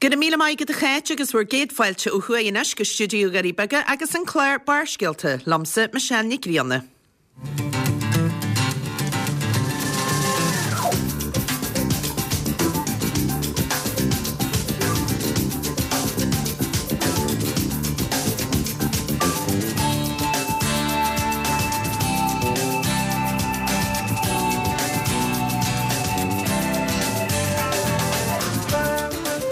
Go raibh míle maith agat a Cháit agus bhur gcéad fáilte ó thuaidh anois go stiúideo Dhoirí Beaga agus an clár Barrscéalta, liomsa Michelle Nic Grianna.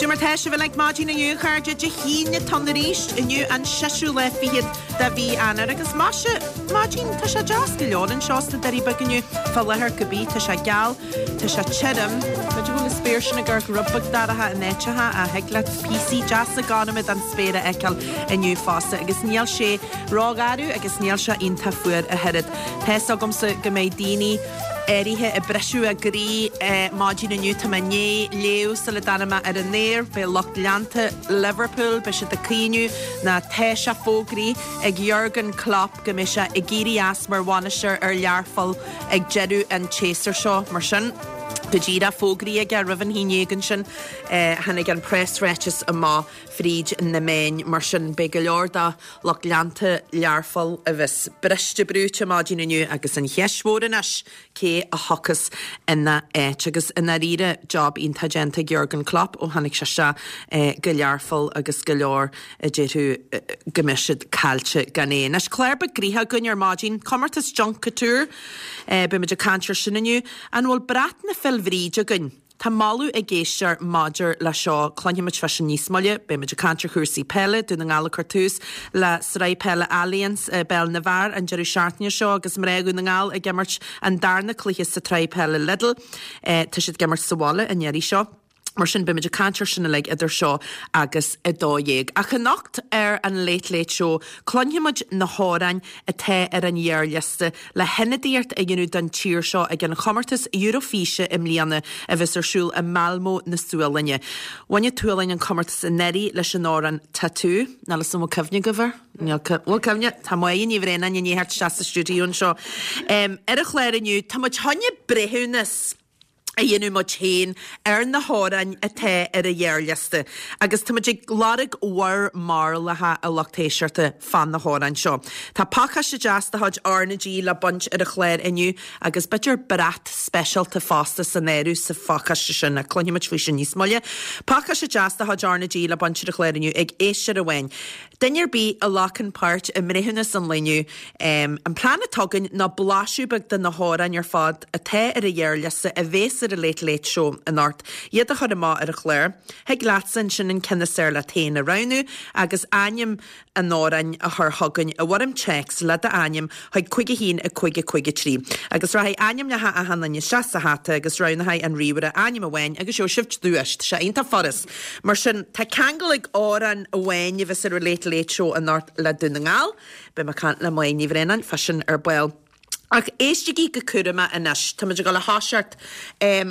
Cad é mar tá sibh uilig maidin inniu, a chairde? Dé hAoine atá ann arís, inniu an seisiú lá fichead de mhí Eanáir agus maise, maidin, tá sé deas go leor anseo sna Doirí Beaga inniu, fá láthair cibé, tá sé geal, tá sé tirim, b'fhéidir go bhfuil an spéir sin ag amharc rud beag dorcha in áiteacha ach thig leat píosaí deasa gorma den spéir a fheiceáil inniu fosta agus níl sé rógharbh agus níl sé iontach fuar ach oiread. Tá's agamsa go mbeidh daoine áirithe ag briseadh a gcroí maidin inniu. Tá mé i ndiaidh léamh sula dtáinig mé ar an aer, beidh lucht leanta Liverpool, beidh siad ag caoineadh nó tá sé fógraithe ag Jurgen Klopp go mbeidh sé ag éirí as mar bhainisteoir ar Learpholl ag deireadh an tséasúir seo. Mar sin, go díreach fógraithe aige roimh an haon dhéag ansin, tháinig an preasráiteas amach fríd na meáin. Mar sin, beidh go leor de lucht leanta Learpholl a bheas briste brúite maidin inniu agus an cheist mhór anois, cé a thiocfas ina áit? Agus i ndáiríre, job iontach déanta ag Jurgen Klopp ó tháinig sé isteach go Learpholl agus go leor a déarfadh go mbeadh siad caillte gan é. Anois, clár beag gnoitheach againn ar maidin, comórtas Junk Kouture, beimid ag caint ar sin inniu. An bhfuil brat na Féil Bhríde againn? Tá moladh ag éisteoir maidir le seo, cluinfimid fá sin níos moille. Beimid ag caint ar chúrsaí peile, Dún na nGall ag cur tús le Sraith Peile Allianz i bPeil na bhFear an deireadh seachtaine seo agus mná Dhún na nGall ag imirt an darna cluiche sa tsraith peile Lidl. Tá siad ag imirt sa bhaile an iarraidh seo. Mar sin beimid ag caint ar sin uilig idir seo agus 12. Ach anocht ar an Late Late Show cluinfimid na hamhráin atá ar an ghearrliosta le hionadaíocht a dhéanamh don tír seo ag an chomórtas Eurofíse i mbliana a bheas ar siúl i Malmö na Sualainne. Bhain an tSualainn an comórtas anuraidh leis an amhrán Tattoo. Níl 'fhios a'm an bhfuil cuimhne agaibh air? Níl bhfuil cuimhne? Tá Máire Ní Bhraonáin i ndiaidh theacht isteach sa stiúideo anseo. Ar an chlár inniu, tá muid chun breithiúnas a dhéanamh muid féin ar na hamhráin atá ar an ghearrliosta agus tá muid ag lorg bhur mbarúlacha, a lucht éisteachta, fá na hamhráin seo. Tá pacáiste deas de chuid R na G le baint ar an chlár inniu agus b'fhéidir brat speisialta fosta san áireamh sa phacáiste sin, ach cluinfidh muid faoi sin níos moille. Pacáiste deas de chuid R na G le baint ar an chlár inniu ag éisteoir amháin. Duine ar bith a ghlacann páirt i mbreithiúnas an lae inniu, an plean atá againn ná blaiseadh beag de na hamhráin ar fad atá ar an ghearrliosta a bhéas ar an Late Late Show anocht, iad a chur amach ar an chlár. Thig leatsa ansin an ceann is fearr leat féin a roghnú agus ainm an amhráin a chur chugainn i bhfoirm téacs le d'ainm chuig 5 1 5 5 3. Agus rachaidh ainmneacha achan duine isteach sa hata agus roghnóidh an ríomhaire ainm amháin agus gheobhaidh sibh duais. Tá sé iontach furast. Mar sin, tá ceangal ag amhrán amháin a bheas ar an Late Late Show anocht le Dún na nGall. Beidh mé ag caint le Máire Ní Bhraonáin fá sin ar ball. Ach éistigí go cúramach anois. Tá muid ag dul a thoiseacht.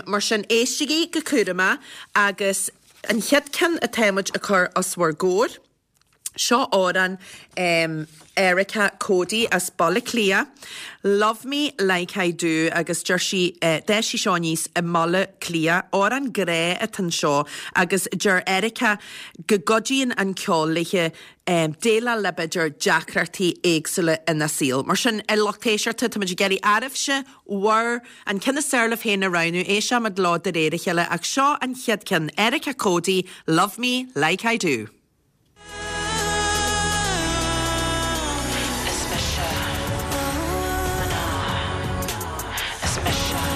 Mar sin, éistigí go cúramach agus an chéad ceann atá muid ag cur os bhur gcomhair, Seo amhrán Erica Cody as Baile Átha Cliath, Love Me Like I Do agus deir sí, d'fhás sí seo aníos i mBaile Átha Cliath. Amhrán grá atá anseo agus deir Erica go gcuidíonn an ceol léi déileáil le b'fhéidir deacrachtaí éagsúla ina saol. Mar sin, a lucht éisteachta, tá muid ag iarraidh oraibhse bhur, an ceann is fearr libh féin a roghnú, éistfimid leo de réir a chéile ach seo an chéad ceann, Erica Cody, Love Me Like I Do. Is mise mná.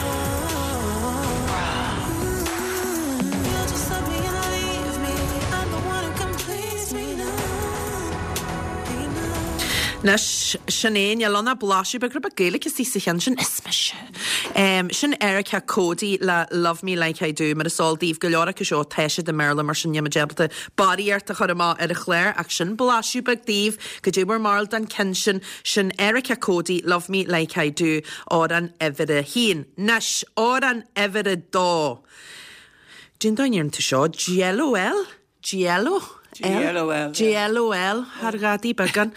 Is mise grá. Anois, sin é, níl ann ach blaiseadh beag, rud beag Gaeilge istigh sa cheann sin. Is mise. Sin Erica Cody le Love Me Like I Do. Mar is eol daoibh, go leor acu seo, tá siad i mBéarla, mar sin níl muid ábalta barraíocht a chur amach ar an chlár, ach sin blaiseadh beag daoibh. Cad é bhur mbarúil den ceann sin? Sin Erica Cody, Love Me Like I Do, amhrán uimhir a haon. Anois, amhrán uimhir a dó. Cén dóigh a ndeireann tú seo? Jello L? JLO? JLOL. JLOL, thar ghadaí beagán.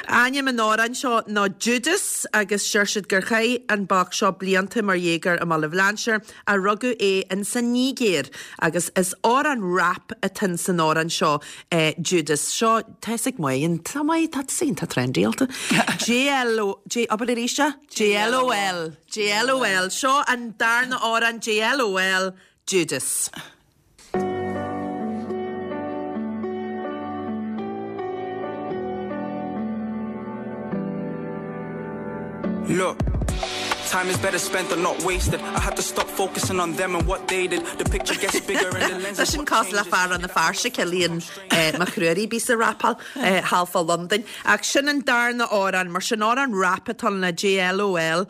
Ainm an amhráin seo ná Judas agus deir siad gur chaith an boc seo blianta mar dhéagóir i mBaile Bhlainséir ach rugadh é in san Nigéir agus is amhrán rap atá in san amhrán seo Judas. Seo, tá fhios ag Máire, tá Máire, tá tú iontach trendy-áilte. JLO, J, abair arís é? JLOL. JLOL. Seo an darna amhrán JLOL, Judas. Look. Time is better spent than not wasted. I had to stop focusing on them and what they did. The picture gets bigger and the lens Tá sin cosúil le fear Rann na Feirste, Cillian Mac Ruairí, bíos ag rapáil thall fá Londain. Ach sin an darna amhrán, mar sin amhrán rap atá ann le JLOL,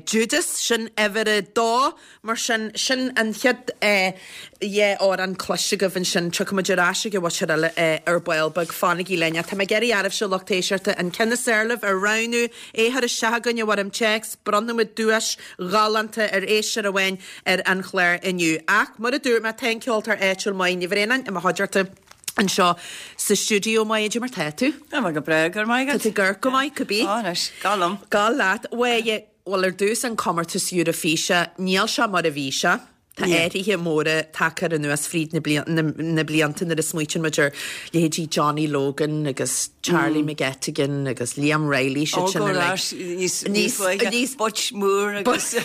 Judas, sin uimhir a dó. Mar sin, sin an chéad dhá amhrán cloiste agaibh ansin. Tiocfaidh muid ar ais ag an mhuintir eile ar ball beag. Fanaigí linn. Ach tá mé ag iarraidh oraibhse, lucht éisteachta, an ceann is fearr libh a roghnú, é a chur isteach chugainn i bhfoirm téacs. Bronnfaidh muid duais ghalánta ar éisteoir amháin ar an chlár inniu. Ach, mar a dúirt mé, tá an ceoltóir áitiúil Máire Ní Bhraonáin i mo chuideachta anseo sa stiúideo. Máire, cad é mar tá tú? Tá mé go breá, go raibh maith agat. Tá tú ag amharc go maith, cibé. Ó, anois, gabh liom. Gabh leat. Mháire, Bhuel, ar dtús, an comórtas Eurofíse, níl sé mar a bhí sé. Tá athruithe móra tagtha air anuas fríd na blianta nuair a smaoitíonn muid ar leithéidí Johnny Logan agus Charlie McGettigan agus Liam Reilly, siad sin uilig. Níos luaithe, Butch Moore agus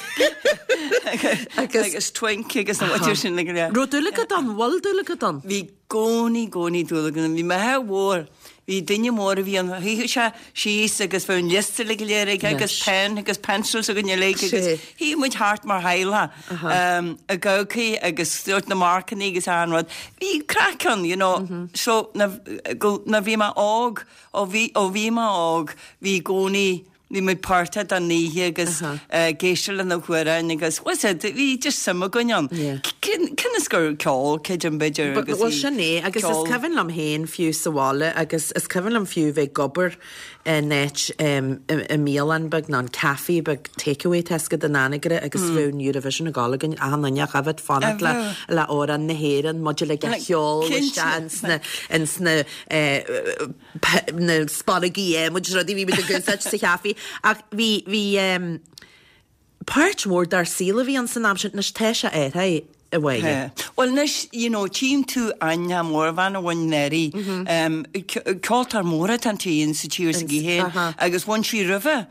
agus Twink agus na muintir sin uilig. Raibh dúil agat ann? Bhfuil dúil agat ann? Bhí gcónaí, gcónaí dúil agam. Bhí m'athair mhór, bhí duine mór a bhí ann, shuíodh sé síos agus bheadh an liosta uilig go léir aige agus pen agus pencils againn uilig agus shuíodh muid thart mar theaghlach ag amharc agus sórt na marcannaí agus achan rud. Bhí craic ann, you know, so nuair bhí mé óg, ó bhí, ó bhí mé óg, bhí i gcónaí, Bhí muid páirteach den oíche agus ag éisteacht le na hamhráin agus was it, bhí just suim againn ann. Cionn is gur ceol, creidim b'fhéidir agus Bhuel sin é agus is cuimhin liom féin fiú sa bhaile agus is cuimhin liom fiú bheith ag obair in áit i mbialann beag nó an café beag takeaway tá a fhios agat in Anagaire agus bheadh an Eurovision ag gabháil againn achan duine ach a bheith ag fanacht le le amhrán na hÉireann muid uilig á cheol isteach ins na ins na na spallogaí adhmaid is rudaí bhí muid ag úsáid sa chaife ach bhí bhí ehm páirt mhór dár saol a bhí ann san am sin anois tá sé athraithe a Mháire. Bhuel anois you know tchím tú aithne mór bhean a bhain Mary ehm ceoltóir mór atá inti sa tír s'aici féin agus bhain sí roimhe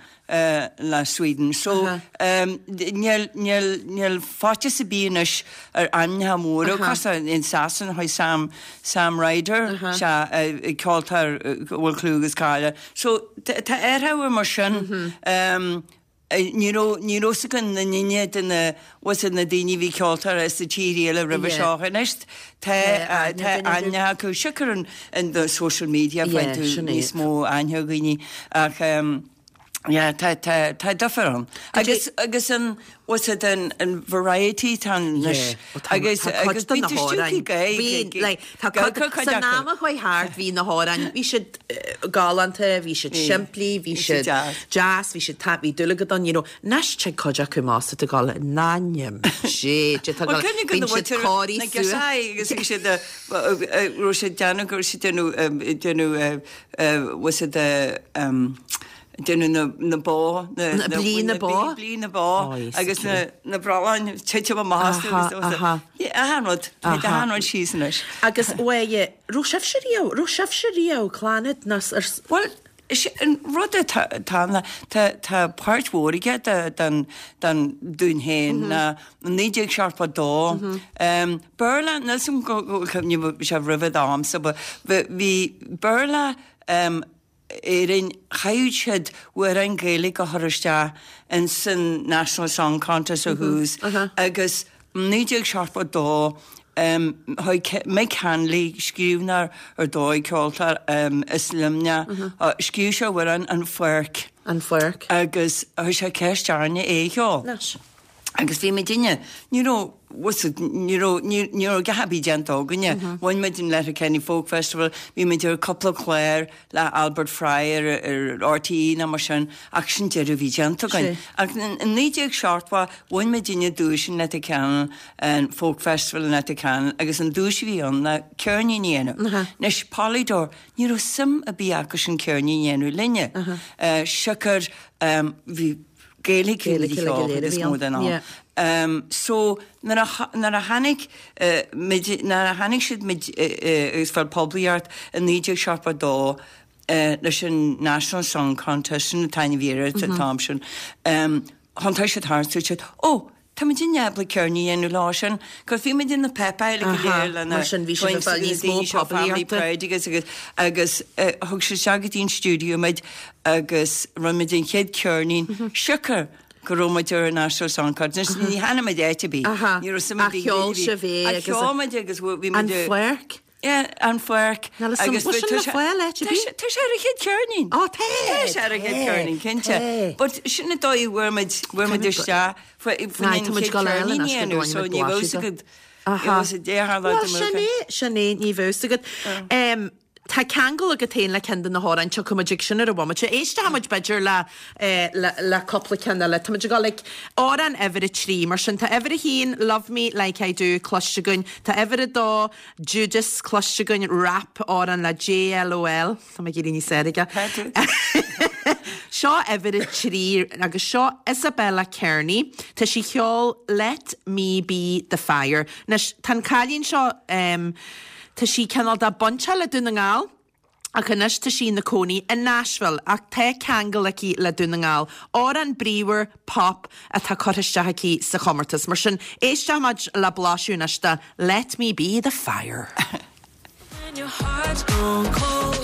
le Sweden. So níl, níl, níl faitíos ar bith anois ar ainmneacha móra cosúil in Sasana chuaigh Sam, Sam Ryder, sea, ceoltóir a bhfuil clú agus cáil air. So tá athrú mar sin. Ní raibh, ní raibh fhios againn na ndaoine de na, bhfuil fhios agat na daoine a bhí ceoltóir sa tír eile roimhe seo anois tá, tá aithne acu. Siocair an, an social media faigheann tú níos mó aithne ar dhaoine ach, Yeah, tá, tá, tá difear ann. Agus, agus an, what's it, an, an variety tá anois. Agus, agus bíonn tú stiúgtha go, Bhí, like, tá cuid, san am a chuaigh thart bhí na hamhráin, bhí siad galánta, bhí siad simplí, bhí siad deas, bhí siad, tá, bhí dúil agat ann, you know. Anois tig cuid acu amach is tú ag gabháil in ainm Dé, Dé, tá gabháil, bíonn siad cóirithe suas. Agus bhí siad, raibh siad déanamh, go raibh siad déanamh, déanamh, what's it, déanamh na bó, na blí na bó, blí na bó agus na brealláin titim amach astu agus achan rud, tá achan rud síos anois. Agus uaidh, raibh sibhse riamh, raibh sibhse riamh, Clannad nó ar. Bhuel, is é an rud atá ann, tá páirt mhór aige den dúinn féin ná 1972, Béarla, níl 's agam go bhfuil cuimhne sé roimhe d'amsa, but bhí Béarla Éirinn, chaithfeadh siad amhráin Gaeilge a chur isteach in san National Song Contest ó thús agus 1972 chuaigh Mick Hanley, scríbhneoir ar dóigh, ceoltóir as Luimneach, scríobh sé amhrán An Pháirc. An Pháirc. Agus chuir sé ceist orainne é a cheol. Anois. Agus bhí muidinne, ní raibh, bhfuil a fhios agat, ní raibh, ní, ní raibh a dhath ar bith déanta againne. Bhain muid an Letterkenny Folk Festival, bhí muid ar cúpla clár le Albert Fry ar, ar RTÉ nó mar sin, ach sin deireadh a bhí déanta againn. Ach in 1970 bhain muidinne duais in Letterkenny, an Folk Festival in Letterkenny, agus an duais a bhí ann ná ceirnín a dhéanamh. Anois, Polydor, ní raibh suim ar bith acu sin ceirnín a dhéanamh linne. Siocair, bhí, Gaeilge a bhí cheol is mó den am. So nuair a nuair a tháinig muid nuair a tháinig siad muid agus fáil poiblíocht i 1972 leis an National Song Contest sin an t-ainm a bhí air an t-am sin thiontaigh siad thart dúirt siad ó tá muidinne ábalta ceirnín a dhéanamh leo sin 'cause bhí muid in na páipéir go léir le na Mar sin bhí siad ag fáil níos mó daoine seo Family poiblíochta. Pride agus agus agus thug siad isteach go dtí an stiúideo muid agus rinne muid an chéad ceirnín, siocair go raibh muid ar an National Song Contest. Ní tháinig muid áit ar bith. Ní raibh suim ar bith Ach cheol sibh é agus. Cheol muid agus bhí muid. An Pháirc? Yeah, An Pháirc. Níl a fhios agam, bhfuil sin le fáil áit ar bith? Tá sé ar an chéad cheirnín. Ó, tá! Tá sé ar an chéad cheirnín, cinnte. But sin an dóigh a bhfuair muid, bhfuair muid isteach faoin chéad cheirnín a dhéanamh, so ní bheadh fhios agat. Bhuel, sin é, sin é, ní bheadh fhios agat. Tá ceangal agat féin le ceann de na hamhráin, tiocfaidh muid ag sin ar an bhomaite. Éistfidh muid b'fhéidir le, le, le cúpla ceann eile. Tá muid ag dul ag amhrán uimhir a 3, mar sin tá uimhir a haon, Love Me Like I Do, cloiste againn. Tá uimhir a dó, Judas, cloiste againn, rap, amhrán le JLOL. Tá mé ag éirí níos fearr aige. Tá tú. Seo uimhir a 3 agus seo Isabella Kearney. Tá sí ag ceol Let Me Be The Fire. Anois, tá an cailín seo, Tá sí cineál de bainteach le Dún na nGall ach anois tá sí ina cónaí i Nashville ach tá ceangal aici le Dún na nGall. Amhrán bríomhar pop atá curtha isteach aici sa chomórtas. Mar sin, éistfidh muid le blaiseadh anois de Let Me Be The Fire. When your heart's gone cold.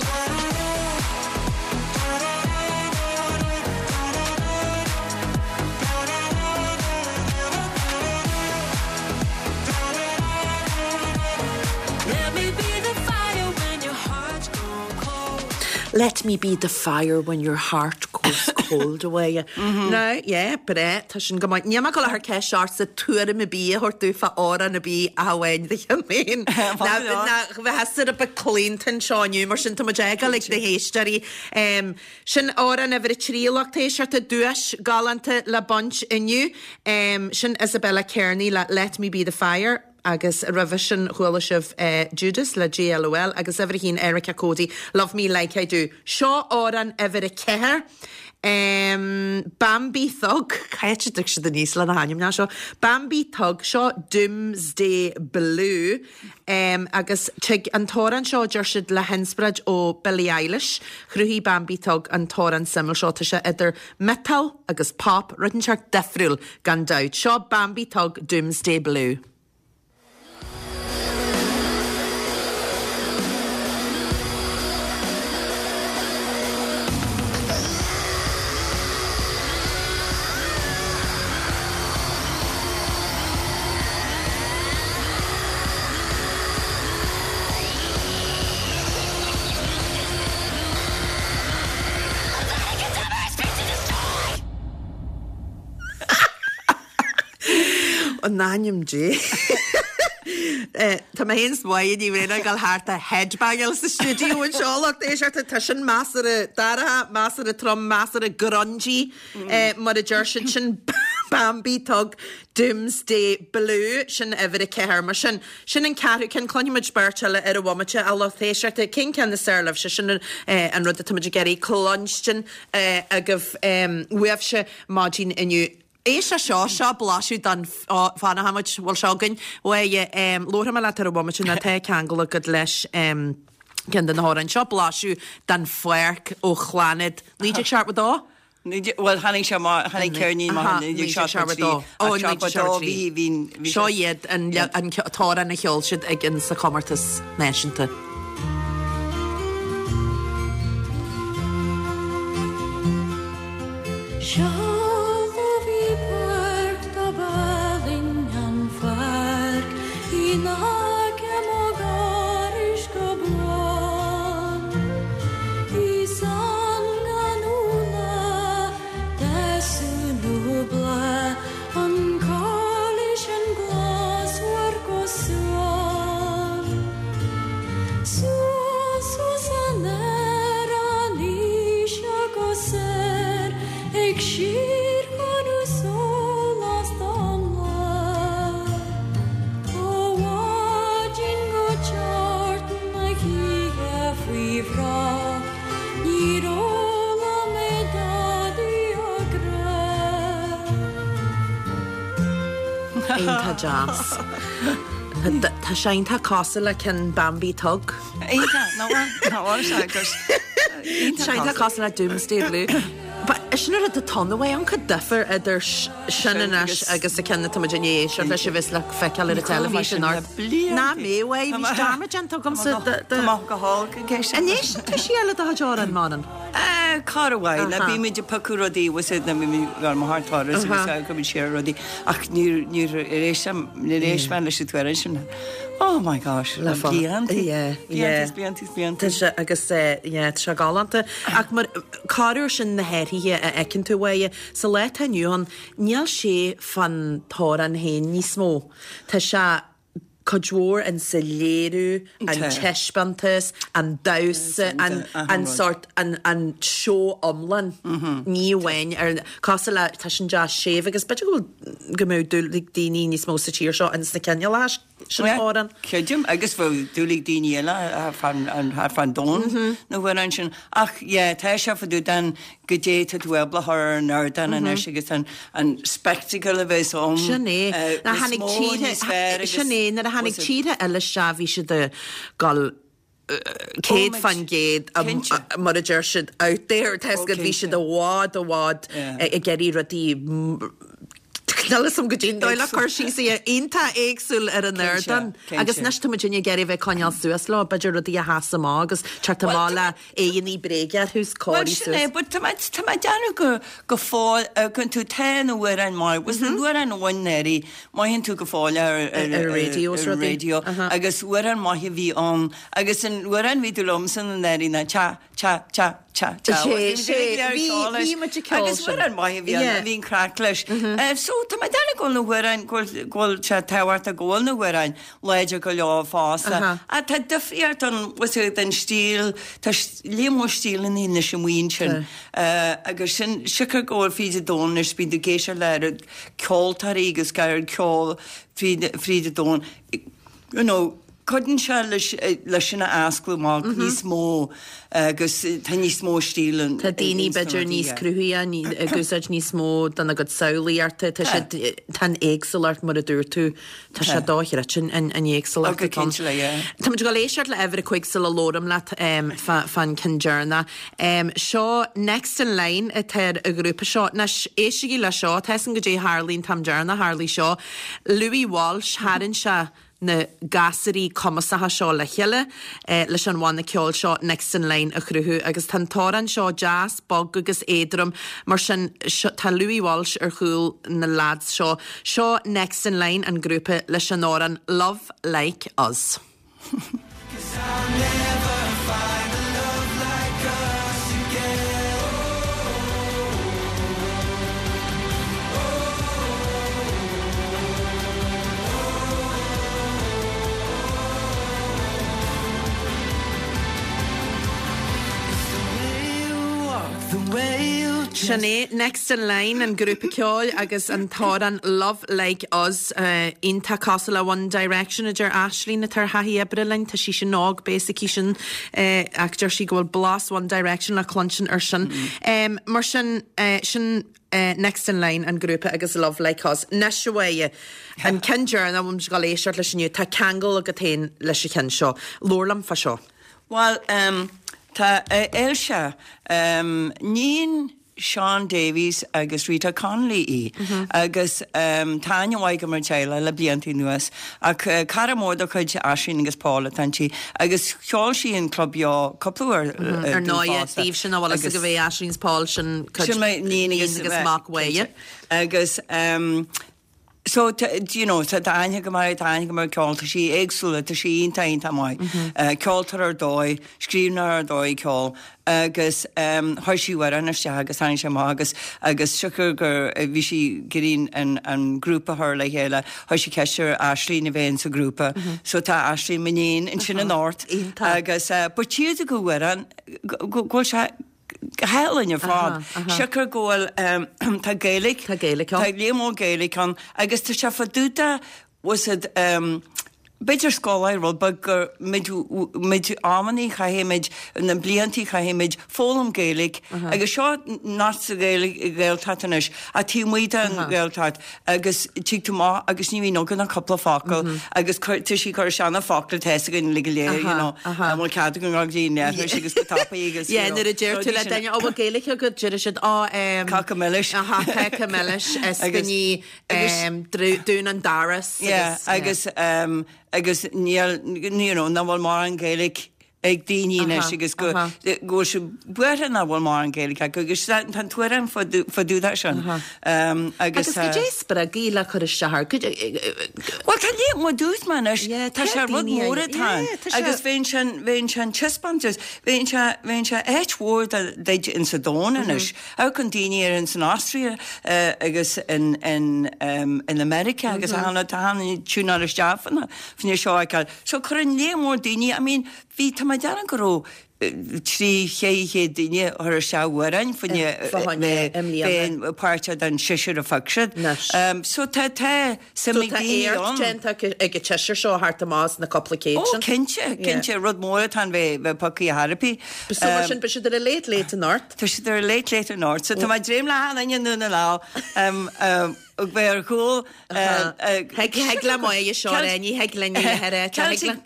Let me be the fire when your heart goes cold away. Now, yeah, breá, tá sin go maith. Níl mé ag dul a chur ceist ortsa tuairim ar bith a thabhairt domh fá amhrán ar bith ach amháin do cheann féin. Ná bheith a bit claonta anseo inniu, mar sin tá muid ag dul ag na héisteoirí. Sin amhrán uimhir a 3 a lucht éisteachta, duais galánta le baint inniu. Sin Isabella Kearney le Let Me Be The Fire agus roimhe sin chuala sibh Judas le JLOL agus uimhir a haon Erica Cody, Love Me Like I Do. Seo amhrán uimhir a 4, Bambi Thug, cá háit a dtig siad aníos le na hainmneacha seo? Bambi Thug, seo Doomsday Blue. Agus tig an t-amhrán seo, deir siad, le hinspioráid ó Billie Eilish. Chruthaigh Bambi Thug an t-amhrán suimiúil seo. Tá sé idir miotal agus pop, rud inteacht difriúil, gan dabht. Seo Bambi Thug, Doomsday Blue. In ainm Dé. Tá mé féin is Máire Ní Bhraonáin ag dul thart ag headbangáil sa stiúideo anseo, lucht éisteachta. Tá sin measartha dorcha, measartha trom, measartha grungy. Mar a deir siad, sin Bambi Thug Doomsday Blue, sin uimhir a 4. Mar sin, sin an ceathrú ceann. Cluinfidh muid beirt eile ar an bhomaite, a lucht éisteachta. Cén ceann is fearr libhse? Sin an rud atá muid ag iarraidh cluinstin agaibh uaibhse maidin inniu. Éist le seo, seo blaiseadh den, fanfaidh muid, bhfuil seo againn? Bhuel, labharfaidh mé leat ar an bhomaite nó tá ceangal agat leis ceann de na hamhráin. Seo blaiseadh den Pháirc ó Chlannad 1972. Bhuel, tháinig sé amach, tháinig ceirnín amach in 1973, ach 72 bhí, bhí, bhí Seo iad an t-amhrán a cheol siad ag an sa chomórtas náisiúnta. Seo bhí páirc dob álainn an pháirc in aice mo dhorais go buan. Is ann gan úlla, deasú nó bláth an corr. Suas suas aniar aníos agus soir ag síorchúnú sólás don lá. Ó mhaidin go teacht na hoíche faoi bhrat níor fhoghlaim mé dadaí a grá. Iontach deas. Tá sé iontach cosúil le ceann Bambie Thug. Iontach, nach bhfuil? Nach bhfuil sé agus Tá sé iontach cosúil le Doomsday Blue. But sin an rud atá ann, an cuid difear idir sin anois agus an ceann atá muid i ndiaidh éisteacht leis a bheas le feiceáil ar an teilifís anocht. Ná mé uaidh, bhí dearmad déanta agamsa de. Tá maith go holc ag éisteacht. An éisteann tú siar le do chuid amhrán, Manann? Corruair, ná bímid ag piocadh rudaí, bhfuil a fhios agat, ná bímid ag dul mo thar turas agus a cuimid siar ar rudaí ach níor, níor éist, níor éist mé leis an t-amhrán sin. Oh my gosh, le blianta, blianta is blianta is blianta. Tá sé agus yeah, tá sé galánta. Ach mar corruair sin na hathruithe a fheiceann tú uaidh, sa lá atá inniu ann, níl sé fán t-amhrán féin níos mó. Tá sé cuid mhór in sa léiriú, an taispeántas, an damhsa, an an sórt, an an seó iomlán. Ní amháin ar, cosúil le, tá sin deas séimh agus b'fhéidir go bhfuil, go mbeadh dúil ag daoine níos mó sa tír seo ins na cineálacha sin amhrán. Creidim, agus bheadh dúil ag daoine eile thart fán domhan na hamhráin sin. Ach yeah, tá sé fá dtaobh den goidé tá tú ábalta a chur ar an ardán anois agus an an spectacle a bheas ann Sin é. Nuair a níos tháinig mó, tíortha, níos fearr agus sin é, nuair a tháinig tíortha eile isteach bhí siad ag dul 100% Cinnte. mar a deir siad out there, tá 'fhios agat, bhí siad i bhfad i bhfad ag iarraidh rudaí Níl 'fhios a'm goidé an dóigh le cur síos air, iontach éagsúil ar an ardán. Agus anois tá muid ag iarraidh a bheith ag coinneáil suas leo, b'fhéidir rudaí a sheas amach agus teacht amach le aghaidheanna bréige orthu 's Bhuel cóirithe sin é, suas. but tá mé, tá mé ag déanamh go, go fóill, gan tú, tá na hamhráin maith, bhfuil 's na hamhráin a bhain anuraidh, mothaíonn tú go fóill ar, ar, Ar an raidió is ar an rudaí. raidió agus amhrán maith a bhí ann agus an amhrán a bhí tú liomsa anuraidh ná cha, cha, cha, cha, cha. Sé, sé, bhí, bhí muid ag ceol Agus sin. amhrán maith a bhí ann, Yeah. bhí an craic leis. So tá mé ag déanamh go bhfuil na hamhráin, go bhfuil, go bhfuil sé tábhachtach go bhfuil na hamhráin láidir go leor fosta. Ach tá difríocht ann, bhfuil 's agat, den stíl, tá léar mór stíleanna anois amuigh ansin. Agus sin, siocair go bhfuil fríd an domhan anois, bíonn tú ag éisteacht le oiread ceoltóirí agus oiread ceol fríd, fríd an domhan, you know, cuireann sé leis, leis sin a osclú amach níos mó agus tá níos mó stíl ann. Tá daoine b'fhéidir níos cruthaithe, ag úsáid níos mó dena gcuid samhlaíochta, tá siad, tá an éagsúlacht mar a dúirt tú, Tá sé dochreidte an éagsúlacht atá ann. Tá muid ag dul éisteacht le uimhir a 5 sula labhraim leat fán ceann deireanach. Seo Next in Line atá ar an ghrúpa seo. Anois, éistigí le seo, tá 'fhios a'm goidé a tharlaigh an t-am deireanach tharlaigh seo. Louis Walsh, tharraing sé na gasúraí cumasacha seo le chéile leis an bhanna ceoil seo Next in Line a chruthú agus tá an t-amhrán seo deas, bog agus éadrom mar sin tá Louis Walsh ar chúl na lads seo. Seo Next in Line, an grúpa, leis an amhrán Love Like Us. Sin é Next in Line, an grúpa ceoil agus an t-amhrán Love Like Us. Iontach cosúil le One Direction a deir Aisling atá ar thaithí oibre linn. Tá sí sin óg, beidh a fhios aici sin ach deir sí go bhfuil blas One Direction le cluinstin ar sin. Mar sin, sin Next in Line, an grúpa agus Love Like Us. Anois a Mháire, an ceann deireanach a bhfuil muid ag dul éisteacht leis inniu, tá ceangal agat féin leis an cheann seo. Labhair liom fá seo. Bhuel, tá Ailse, níon Shaun Davies agus Rita Connolly í agus tá aithne mhaith agam ar an teaghlach le blianta anuas ach cara mór de chuid Aisling agus Paul atá inti agus cheol sí in Club Beo cúpla uair Ar ndóighe, daoibh sin nach bhfuil fhios agaibh é Aisling is Paul sin cuid Sin níon agus mac Mháire. Agus. So, you know, tá aithne agam uirthi, tá aithne agam ar a ceol, tá sí éagsúla, tá sí iontach, iontach maith. Ceoltóir ar dóigh, scríbhneoir ar dóigh ceoil agus chuir sí amhrán isteach agus tháinig sé amach agus agus siocair gur bhí sí ag iarraidh an an grúpa a chur le chéile, chuir sí ceist ar Aisling a bheith insa ghrúpa. So tá Aisling, m'iníon, ansin anocht agus but tchífidh tú go amhrán go bhfuil sé go hálainn ar fad. Siocair go bhfuil, tá Gaeilge, Tá Gaeilge ann. Tá léar mór Gaeilge ann agus tá sé fá dtaobh de, bhfuil 's a'd, b'fhéidir scoláire rud beag gur muid, muid amannaí chaithfidh muid, na bliantaí chaithfidh muid foghlaim Gaeilge agus seo not sa Ghaeilge, Ghaeltacht anois ach taobh amuigh den Ghaeltacht agus tig tú amach agus ní bhíonn againn ach cúpla focal agus cuir, tá sí ag cur isteach na focla atá fhios againn uilig go léir, you know, an bhfuil cead againn dul go dtí an leithris agus go tapaidh agus, you Yeah, know, nuair a deir tú rudaí le sin. duine, "Ó, bhfuil Gaeilge agat?" Deir siad, "Ó, em, Cáca milis. Aha, cáca milis, Agus- ispíní, agus- em, dru- dún an doras Yeah, agus, agus, em, agus níl, you know, nach bhfuil mórán Gaeilge ag daoine anois agus go bhfuil siad buartha nach bhfuil mórán Gaeilge acu agus tá an t-amhrán fá dtaobh de sin. Agus goidé a spreag í le cur isteach air? Bhuel tá léar mór dúirt mé anois, tá sé rud mór atá ann agus bheinn sin, bheinn sin taispeántas, bheinn sé, bheinn sé áit mhór duit insa domhan anois. Amharcann daoine ar ins an Austria agus in, in, in America agus tá an tiúnáil isteach fá choinne seo a fheiceáil. So cuireann léar mór daoine, I mean, bhí, tá mé ag déanamh go raibh 3, 400 duine a chuir isteach amhráin fá choinne bheith páirteach den seisear a phioc siad. So tá, tá suim ag daoine ann. So tá éacht déanta ag an tseisear seo thart amach as na cúpla céad sin. Ó cinnte, cinnte, rud mór atá ann bheith pioctha ar chor ar bith. So mar sin, beidh siad ar a Late Late anocht. Tá siad ar a Late Late anocht. So tá mé ag dréim le achan duine i nDún na nGall bheith ar chúl Thig le Máire seo a rá, ní thig linn í a rá. Celtic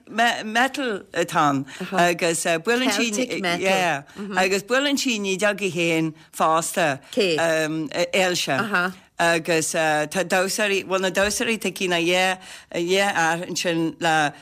metal atá ann agus buaileann sí Celtic metal. Yeah, agus buaileann sí an fhidil í féin fosta. Cé? Ailse. Agus tá damhsóirí, bhuel na damhsóirí tá cinn a dhá fhear ansin le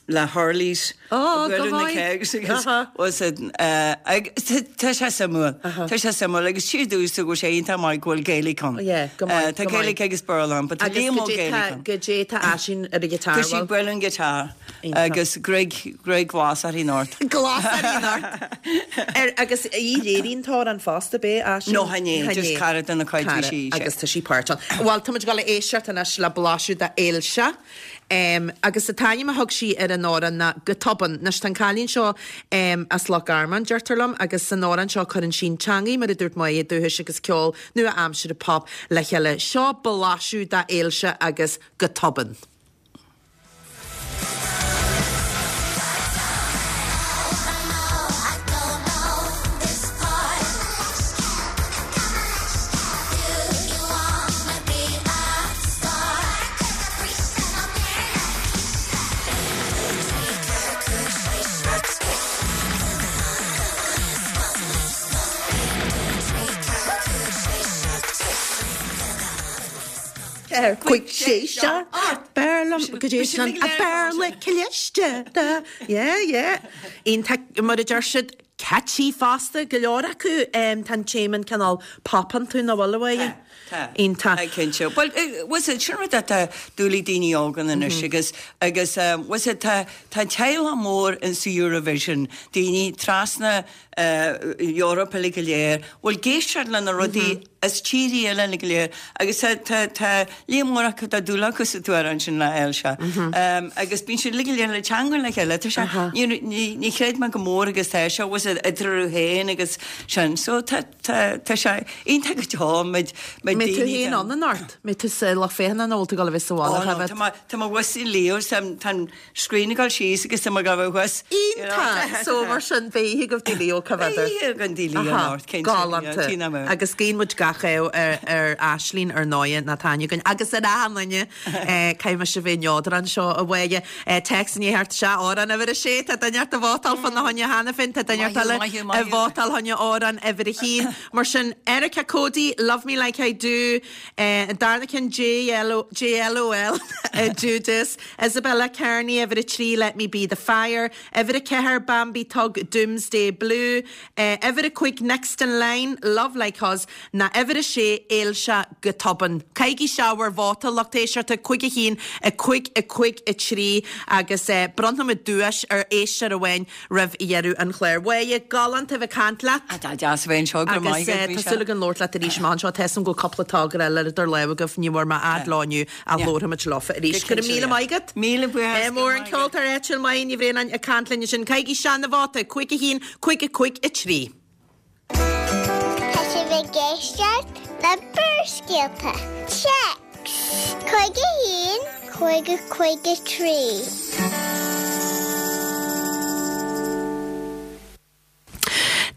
le hurleys. Ó, go Buaileadh na maith. kegs agus was it agus tá sé suimiúil. Tá sé suimiúil agus tchífidh tú go bhfuil sé iontach maith go bhfuil Gaeilge ann. Yeah, go maith, Tá go maith. Gaeilge agus Béarla ann, but tá Agus léar mór goidé Gaeilge tá, ann. goidé tá Aisling ar an ghiotár, Tá sí bhfuil? buaileadh an guitar Iontach. agus gruaig, gruaig ghlas uirthi anocht. Glas uirthi anocht. Ar, agus í léiríonn an t-amhrán fosta, b'é Aisling? No, chan é, just cara de na cuid bhí Cara, sí, sé. agus tá sí páirteach ann. Bhuel, tá muid ag dul a éisteacht anois le blaiseadh de Ailse. Agus an t-ainm a thug sí ar an amhrán ná Go Tobann. Anois tá an cailín seo as Loch Garman, deirtear liom, agus san amhrán seo cuireann sí an teangaidh, mar a dúirt Máire, dúchais agus ceol nua-aimseartha pop le chéile. Seo blaiseadh d'Ailse agus Go Tobann. Cuig sé seo B'fhearr liom go dtí sin a b'fhearr le cliste Yeah, yeah. Iontach mar a deir siad catchy fosta, go leor acu. Tá an téama cineál pop iontu nach bhfuil a Mháire? Tá. Iontach. Tá, cinnte. Bhuel, bhfuil 's a'd, sin rud atá dúil ag daoine óga anois agus, agus bhfuil 's a'd, tá, tá teaghlach mór in sa Eurovision, daoine trasna Eoraip uilig go léir, bhfuil ag éisteacht le na rudaí as tírí eile uilig go léir agus tá, tá, tá líon mór acu, tá dúil acu sa t-amhrán sin le Ailse. Agus bíonn siad uilig go léir le teangmháil le chéile, tá sé, ní, ní, ní chreid mé go mór agus tá sé, bhfuil 's a'd, eatarthu féin agus sin. So tá, tá, tá sé iontach go deo, muid, muid Mbeidh tú daoine féin den. ann anocht? Mbeidh tú sa lucht féachana nó bhfuil tú ag dul a bheith sa bhaile Ó no, Choimhéad? tá mé, tá mé thuas i Leo, tá, tá an screen ag dul síos agus tá mé ag gabháil thuas. Iontach! So mar sin, beidh oíche agaibh Leo, cá bhfeadar? Beidh oíche againn Leo anocht, cinnte. Galánta. Tina mé. Agus guíonn muid gach ádh ar, ar Aisling, ar ndóighe, ná tá aithne againn, agus ar achan duine. Caithfidh mise a bheith neodrach anseo, a Mháire. Téacs i ndiaidh theacht isteach, amhrán uimhir a sé, tá duine ort ag vótáil fá na choinne cheana féin, tá duine ort eile ag vótáil fá choinne amhrán uimhir a haon. Mar sin, Erica Cody, Love Me Like I Do, an darna ceann, JLOL, Judas, Isabella Kearney, uimhir a 3, Let Me Be The Fire, uimhir a 4, Bambi Thug, Doomsday Blue, uimhir a 5, Next In Line, Love Like Us, ná uimhir. Uimhir a sé, Éil sé go tobann. Caithigí isteach bhur vóta, lucht éisteachta, 5 1, 5 5 3 agus bronnfaimid duais ar éisteoir amháin roimh dheireadh an chláir. A Mháire, galánta a bheith ag caint leat. Tá deas a bheith anseo, go raibh maith agat, Agus tá súil agam labhairt leat arís amach anseo. Tá 'fhios a'm go bhfuil cúpla togra eile idir lámha agaibh, ní bhfuair mé fhad leo inniu ach labharfaimid leofa arís. Go raibh míle maith agat. Míle buíochas. Ádh mór an ceoltóir áitiúil Máire Ní Bhraonáin ag caint linn ansin. Caithigí isteach an vóta, 5 1, 5 5 3. Tá sibh ag éisteacht le Barrscéalta. Téacs 5 1 5 5 3.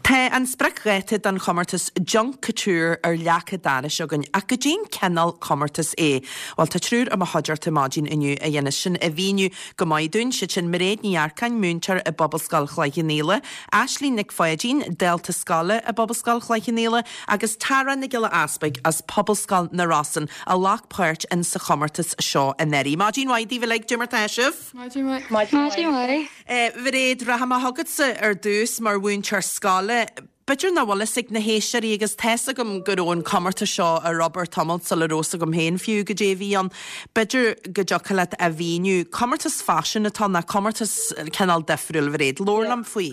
Tá an spriocdháta don chomórtas Junk Kouture ar leac an dorais againn, ach goidé'n cineál comórtas é? Bhuel, tá triúr i mo chuideachta maidin inniu a dhéanas sin a mhíniú go maith dúinn, siad sin Mairéad Ní Earcáin, múinteoir i bPobalscoil Chloich Cheann Fhaola, Aisling Nic Pháidín, dalta scoile i bPobalscoil Chloich Cheann Fhaola, agus Tara Nic Giolla Easpaig as Pobalscoil na Rosann a ghlac páirt in sa chomórtas seo anuraidh. Maidin mhaith daoibh uilig, goidé mar tá sibh? Maidin mhaith. Maidin mhaith. A Mhairéad, rachaidh mé chugatsa ar dtús mar mhúinteoir scoile. B'fhéidir nach bhfuil fhios ag na héisteoirí agus tá's agam go raibh an comórtas seo ar obair tamalt sula raibh fhios agam féin fiú goidé a bhí ann. B'fhéidir go dtiocfadh leat a mhíniú. Comórtas faisin atá ann, nó comórtas cineál difriúil, a Mhairéad. Labhair liom faoi.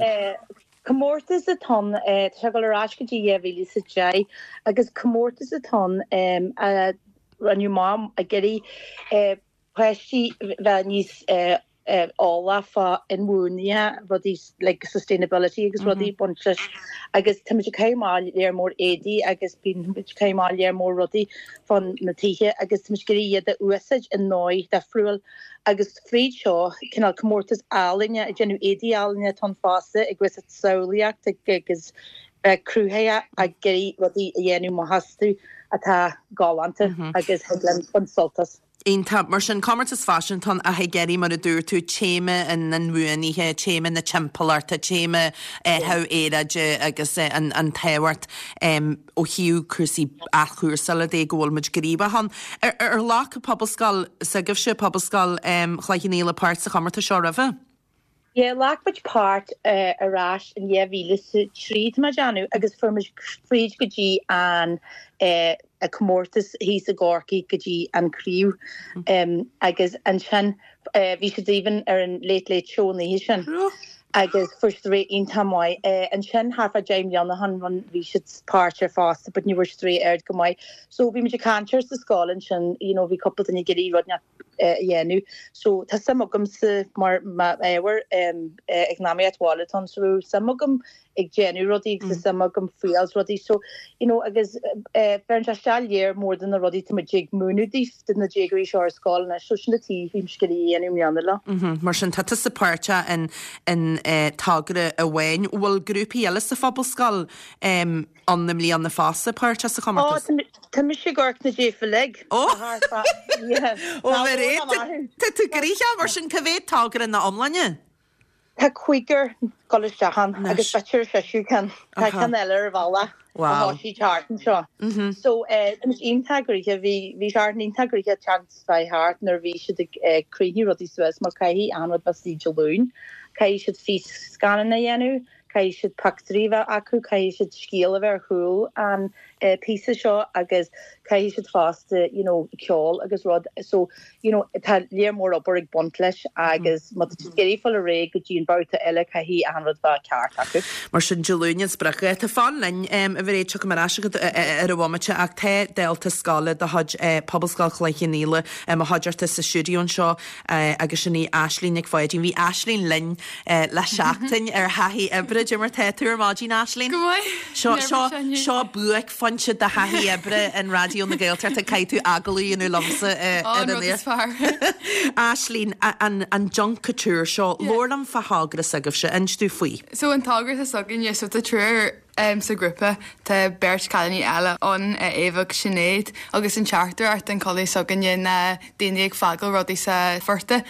Comórtas atá ann, tá sé ag dul ar ais go dtí 2010 agus comórtas atá ann a rinneadh amach ag iarraidh páistí bheith níos eolach fá inbhuanaithe, rudaí like sustainability agus rudaí ag baint leis agus táimid ag caitheamh amach léar mór éadaí agus bíonn muid ag caitheamh amach léar mór rudaí fán na tithe agus táimid ag iarraidh iad a úsáid i ndóigh difriúil agus fríd seo cineál comórtas ealaíne ag déanamh éadaí ealaíne atá ann fosta ag úsáid samhlaíocht agus bheith cruthaitheach ag iarraidh rudaí a dhéanamh amach astu atá galánta agus thig linn baint sult as. Iontach. Mar sin, comórtas faisin atá ann ach ag iarraidh, mar a dúirt tú, téama an inbhuanaithe, téama na timpeallachta, téama athrú aeráide agus an tábhacht ó thaobh cúrsaí athchúrsála de go bhfuil muid gníomhach ann. Ar ghlac Pobalscoil s'agaibhse, Pobalscoil Chloich Cheann Fhaola, páirt sa chomórtas seo roimhe? Yeah, ghlac muid páirt ar ais in 2003 tá mé ag déanamh agus fuair muid fríd go dtí an comórtas thíos i gCorcaigh go dtí an craobh agus ansin bhí siad even ar an Late Late Show an oíche sin agus fuair siad rate iontach maith. Ansin thart fá 10 mbliana ó shin run bhí siad páirteach fosta but ní bhfuair siad rate ard go maith. So bhí muid ag caint air sa scoil ansin you know bhí cúpla duine ag iarraidh rud a dhéanamh. So tá suim agamsa mar m'ábhar eacnamaíocht bhaile atá ann so bhí suim agam ag déanamh rudaí agus tá suim agam fuáil rudaí so you know agus bheireann sé isteach léar mór de na rudaí tá muid ag múineadh daofa do na déagóirí seo ar scoil anois so sin an tuige bhí mise ag iarraidh a dhéanamh i mbliana leo. Mar sin tá tusa páirteach in in togra amháin. Bhfuil grúpaí eile sa Phobalscoil ann i mbliana fosta páirteach sa chomórtas? Ó, tá mise ag amharc na daofa uilig. Ó! Ó, Mhairéad, tá tú gnoitheach mar sin, cá mhéad togra ina iomláine? Tá cúigear ag dul isteach ann agus b'fhéidir seisear ceann. Tá ceann eile ar an bhealach ó thosaigh thart anseo. So, tá muid iontach gnoitheach, bhí bhí Seachtain iontach gnoitheach seans bheith thart nuair a bhí siad ag cruinniú rudaí suas mar caithfidh achan rud bheith istigh Dé Luain, caithfidh siad fís-scannán a dhéanamh, Caithfidh siad pictiúirí a bheith acu, caithfidh siad scéal a bheith ar chúl an píosa seo agus caithfidh siad fosta you know ceol agus rud so you know tá léar mór obair ag baint leis agus má tá siad ag iarraidh fáil ar aghaidh go dtí an babhta eile caithfidh achan rud bheith ceart acu. Mar sin Dé Luain an spriocdháta. Fan linn, a Mhairéad, tiocfaidh mé ar ais chugat ar an bhomaite ach tá dalta scoile de chuid Pobalscoil Chloich Cheann Fhaola i mo chuideachta sa stiúideo anseo agus sin í Aisling Nic Pháidín. Bhí Aisling linn le seachtain ar thaithí oibre. Cad é mar tá tú ar maidin, Aisling? Go maith. Seo, seo, seo buaicphointe de thaithí oibre in Raidió na Gaeltachta. Caithfidh tú agallamh a dhéanamh liomsa ar an aer. Is fearr. Aisling, an, an Junk Kouture seo, labhair liom fá thogra s'agaibhse, inis domh faoi. So an togra atá s'againne, so tá triúr sa ghrúpa, tá beirt cailíní eile ann, Éabha agus Sinéad, agus an teachtaireacht den chulaith s'againne ná daoine ag fágáil rudaí sa phortach.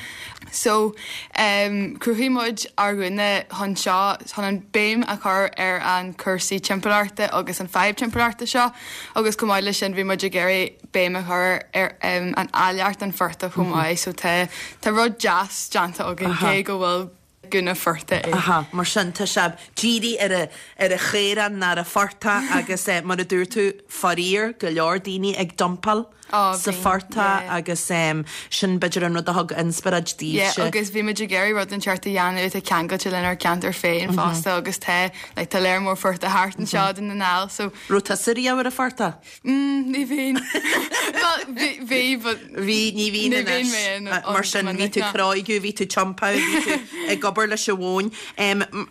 So, chruthaigh muid ár ngúna chun seo, chun an béim a chur ar an cúrsaí timpeallachta agus an fadhb timpeallachta seo agus chomh maith leis sin bhí muid ag iarraidh béim a chur ar an áilleacht an phortach chomh maith. So tá tá rud deas déanta againn cé go bhfuil. gúna phortaigh é. Aha, mar sin tá sé dírithe ar a ar a chaorán ná ar a phortach agus mar a dúirt tú, faraor, go leor daoine ag dumpáil sa phortach agus sin b'fhéidir an rud a thug inspioráid daoibhse. Yeah, agus bhí muid ag iarraidh rud inteacht a dhéanamh atá ceangailte lenár gceantar féin fosta agus tá like tá léar mór phortach thart anseo i Dún na nGall so. Raibh tusa riamh ar an phortach? Mm, ní bhíonn. Well, bhí, bhí, but. Bhí, ní bhíonn Ní bhíonn mé anois. in ann Mar sin, bhí tú cróigiú, bhí tú tiompáil, bhí tú ag obair leis an mhóin.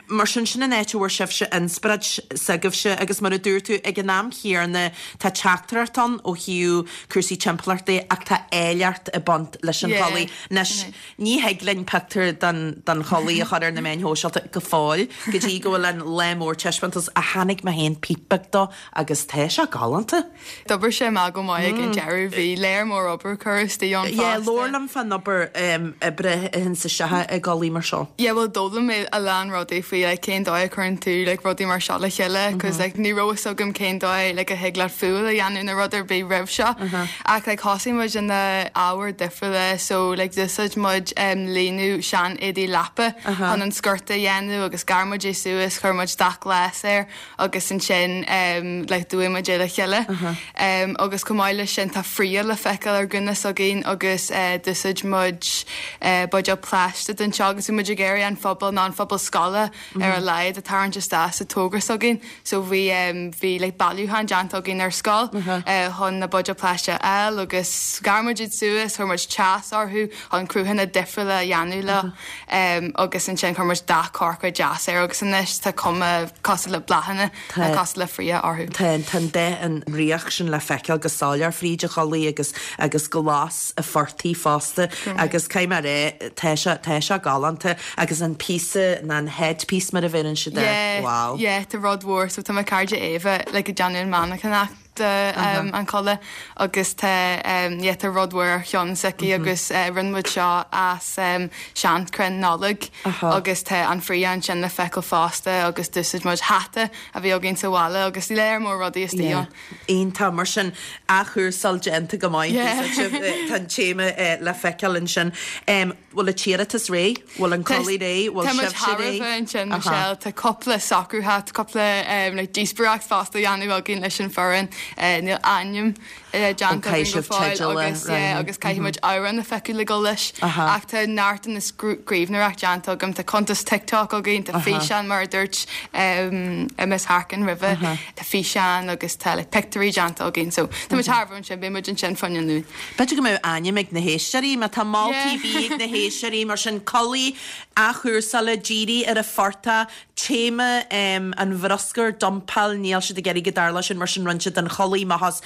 Mar sin, sin an áit a bhfuair sibhse inspioráid s'agaibhse agus mar a dúirt tú, ag an am chéanna tá teachtaireacht ann ó thaobh cúrsaí timpeallachta ach tá áilleacht ag baint leis an Yeah, chulaith. Anois, sin é. ní thig linn pictiúr den, den chulaith a chur ar na meáin shóisialta go fóill go dtí go bhfuil an lá mór taispeántas ach chonaic mé féin píp beag dó Agus tá sé galánta. D'oibrigh sé amach go maith ag an deireadh. Bhí léar mór obair curtha istigh ann Yeah, fosta. labhair liom fán obair oibre a théanns isteach i gculaith mar seo. Yeah, bhuel d'fhoghlaim mé a lán rudaí faoi like cén dóigh a chuireann tú like rudaí mar seo le chéile cos like ní raibh fhios agam cén dóigh like a thig leat fuáil a dhéanamh nó rud ar bith roimh seo. Ach like thosaigh muid in na ábhair difriúla so like d'úsáid muid em líonadh sean éadaí leapa chun an sciorta a dhéanamh agus ghearr muid é suas, chuir muid dath glas air agus ansin like d'fhuaigh muid é le chéile. Agus chomh maith leis sin tá fraoch le feiceáil ar ghúna s'againn agus d'úsáid muid buidéal plaisteach don seo agus bhí muid ag iarraidh an phobal nó an phobal scoile ar a laghad a tarraingt isteach sa togra s'againn. So bhí bhí like bailiúchán déanta againn ar scoil chun na buidéil plaisteach a fháil agus ghearr muid iad suas, chuir muid teas orthu chun cruthanna difriúla a dhéanamh leo. Agus ansin chuir muid dath corcra deas air agus anois tá cuma cosúil le bláthanna nó cosúil le fraoch orthu. Tá tá an dath an fhraoch sin le feiceáil go soiléir fríd an chulaith agus agus glas an phortaigh fosta agus caithfidh mé a rá tá sé tá sé galánta agus an píosa ná an headpiece mar a bheireann siad air. Yeah, Wow. yeah, tá rud mhór so tá mo cairde Éabha like ag déanamh an mhainneachanacht do an chulaith agus tá yeah tá rud mhór ar cheann s'aici agus rinne muid seo as seanchrann Nollag agus tá an fraoch ansin le feiceáil fosta agus d'úsáid muid hata a bhí againn sa bhaile agus léar mór rudaí istigh ann. Iontach, mar sin athchúrsáil déanta go maith, tá an téama le feiceáil ansin. Bhfuil an t-iarratas réidh? Bhfuil an culaith réidh? Bhfuil Tá muid sibhse thar a réidh? bheith ansin, Michelle. Tá cúpla socrúithe, tá cúpla like díospóireacht fosta á dhéanamh againn leis an foireann. Níl ainm déanta Caithfidh againn go sibh fóill teideal a agus yeah, roghnú. agus caithfidh muid amhrán a phiocadh le dul leis. Ach tá neart den scríbhneoireacht déanta agam. Tá cuntas TikTok againn, tá físeán mar a dúirt Ms Harkin roimhe, tá físeán agus tá like pictiúirí déanta againn. So tá muid thar a bheith ansin, beidh muid ansin fá choinne an Luain. B'fhéidir go mbeadh ainm ag na héisteoirí, má tá moltaí ar bith ag na héisteoirí, mar sin, culaith athchúrsála, dírithe ar an phortach, téama an bhruscair, dumpáil, níl siad ag iarraidh go dtarlódh sin, mar sin rinne siad an chulaith amach as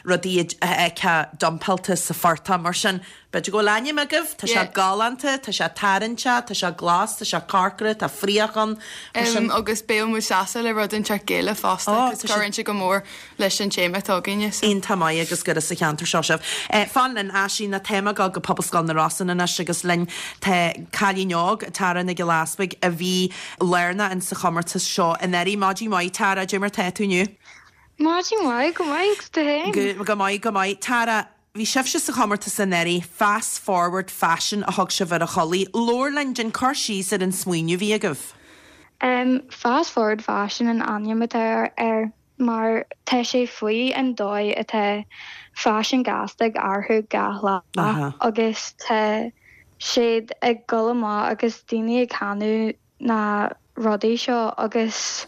rudaí a fheicfeá dumpáilte sa phortach, mar sin, b'fhéidir go bhfuil ainm agaibh, tá sé galánta, tá sé tarraingteach, tá sé glas, tá sé corcra, tá fraoch ann, mar sin. Agus beidh muid sásta le rud inteacht Gaelach fosta, cos cuireann sé go mór leis an téama atá againne. So. Iontach maith agus gur as an cheantar seo sibh. Fan linn, Aisling, tá muid ag gabháil go Pobalscoil na Rosann anois agus linn tá cailín óg, Tara Nic Giolla Easpaig, a bhí lárnach in sa chomórtas seo anuraidh. Maidin mhaith Tara, cad é mar tá tú inniu? Maidin mhaith, go maith agus tú féin? Go maith, go maith. Tara, bhí sibhse sa chomórtas anuraidh, Fast Forward Fashion a thug sibh ar an chulaith. Labhair linn, déan cur síos ar an smaoineamh a bhí agaibh. Fast Forward Fashion an ainm atá air. mar tá sé faoi an dóigh atá faisean gasta ag athrú gach lá agus tá siad ag dul amach agus daoine ag ceannú na rudaí seo agus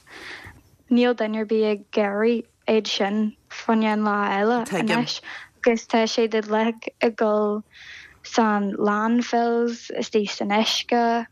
níl duine ar bith ag iarraidh iad sin fá choinne an lá eile anois agus tá siad uilig ag dul san landfills, istigh san uisce,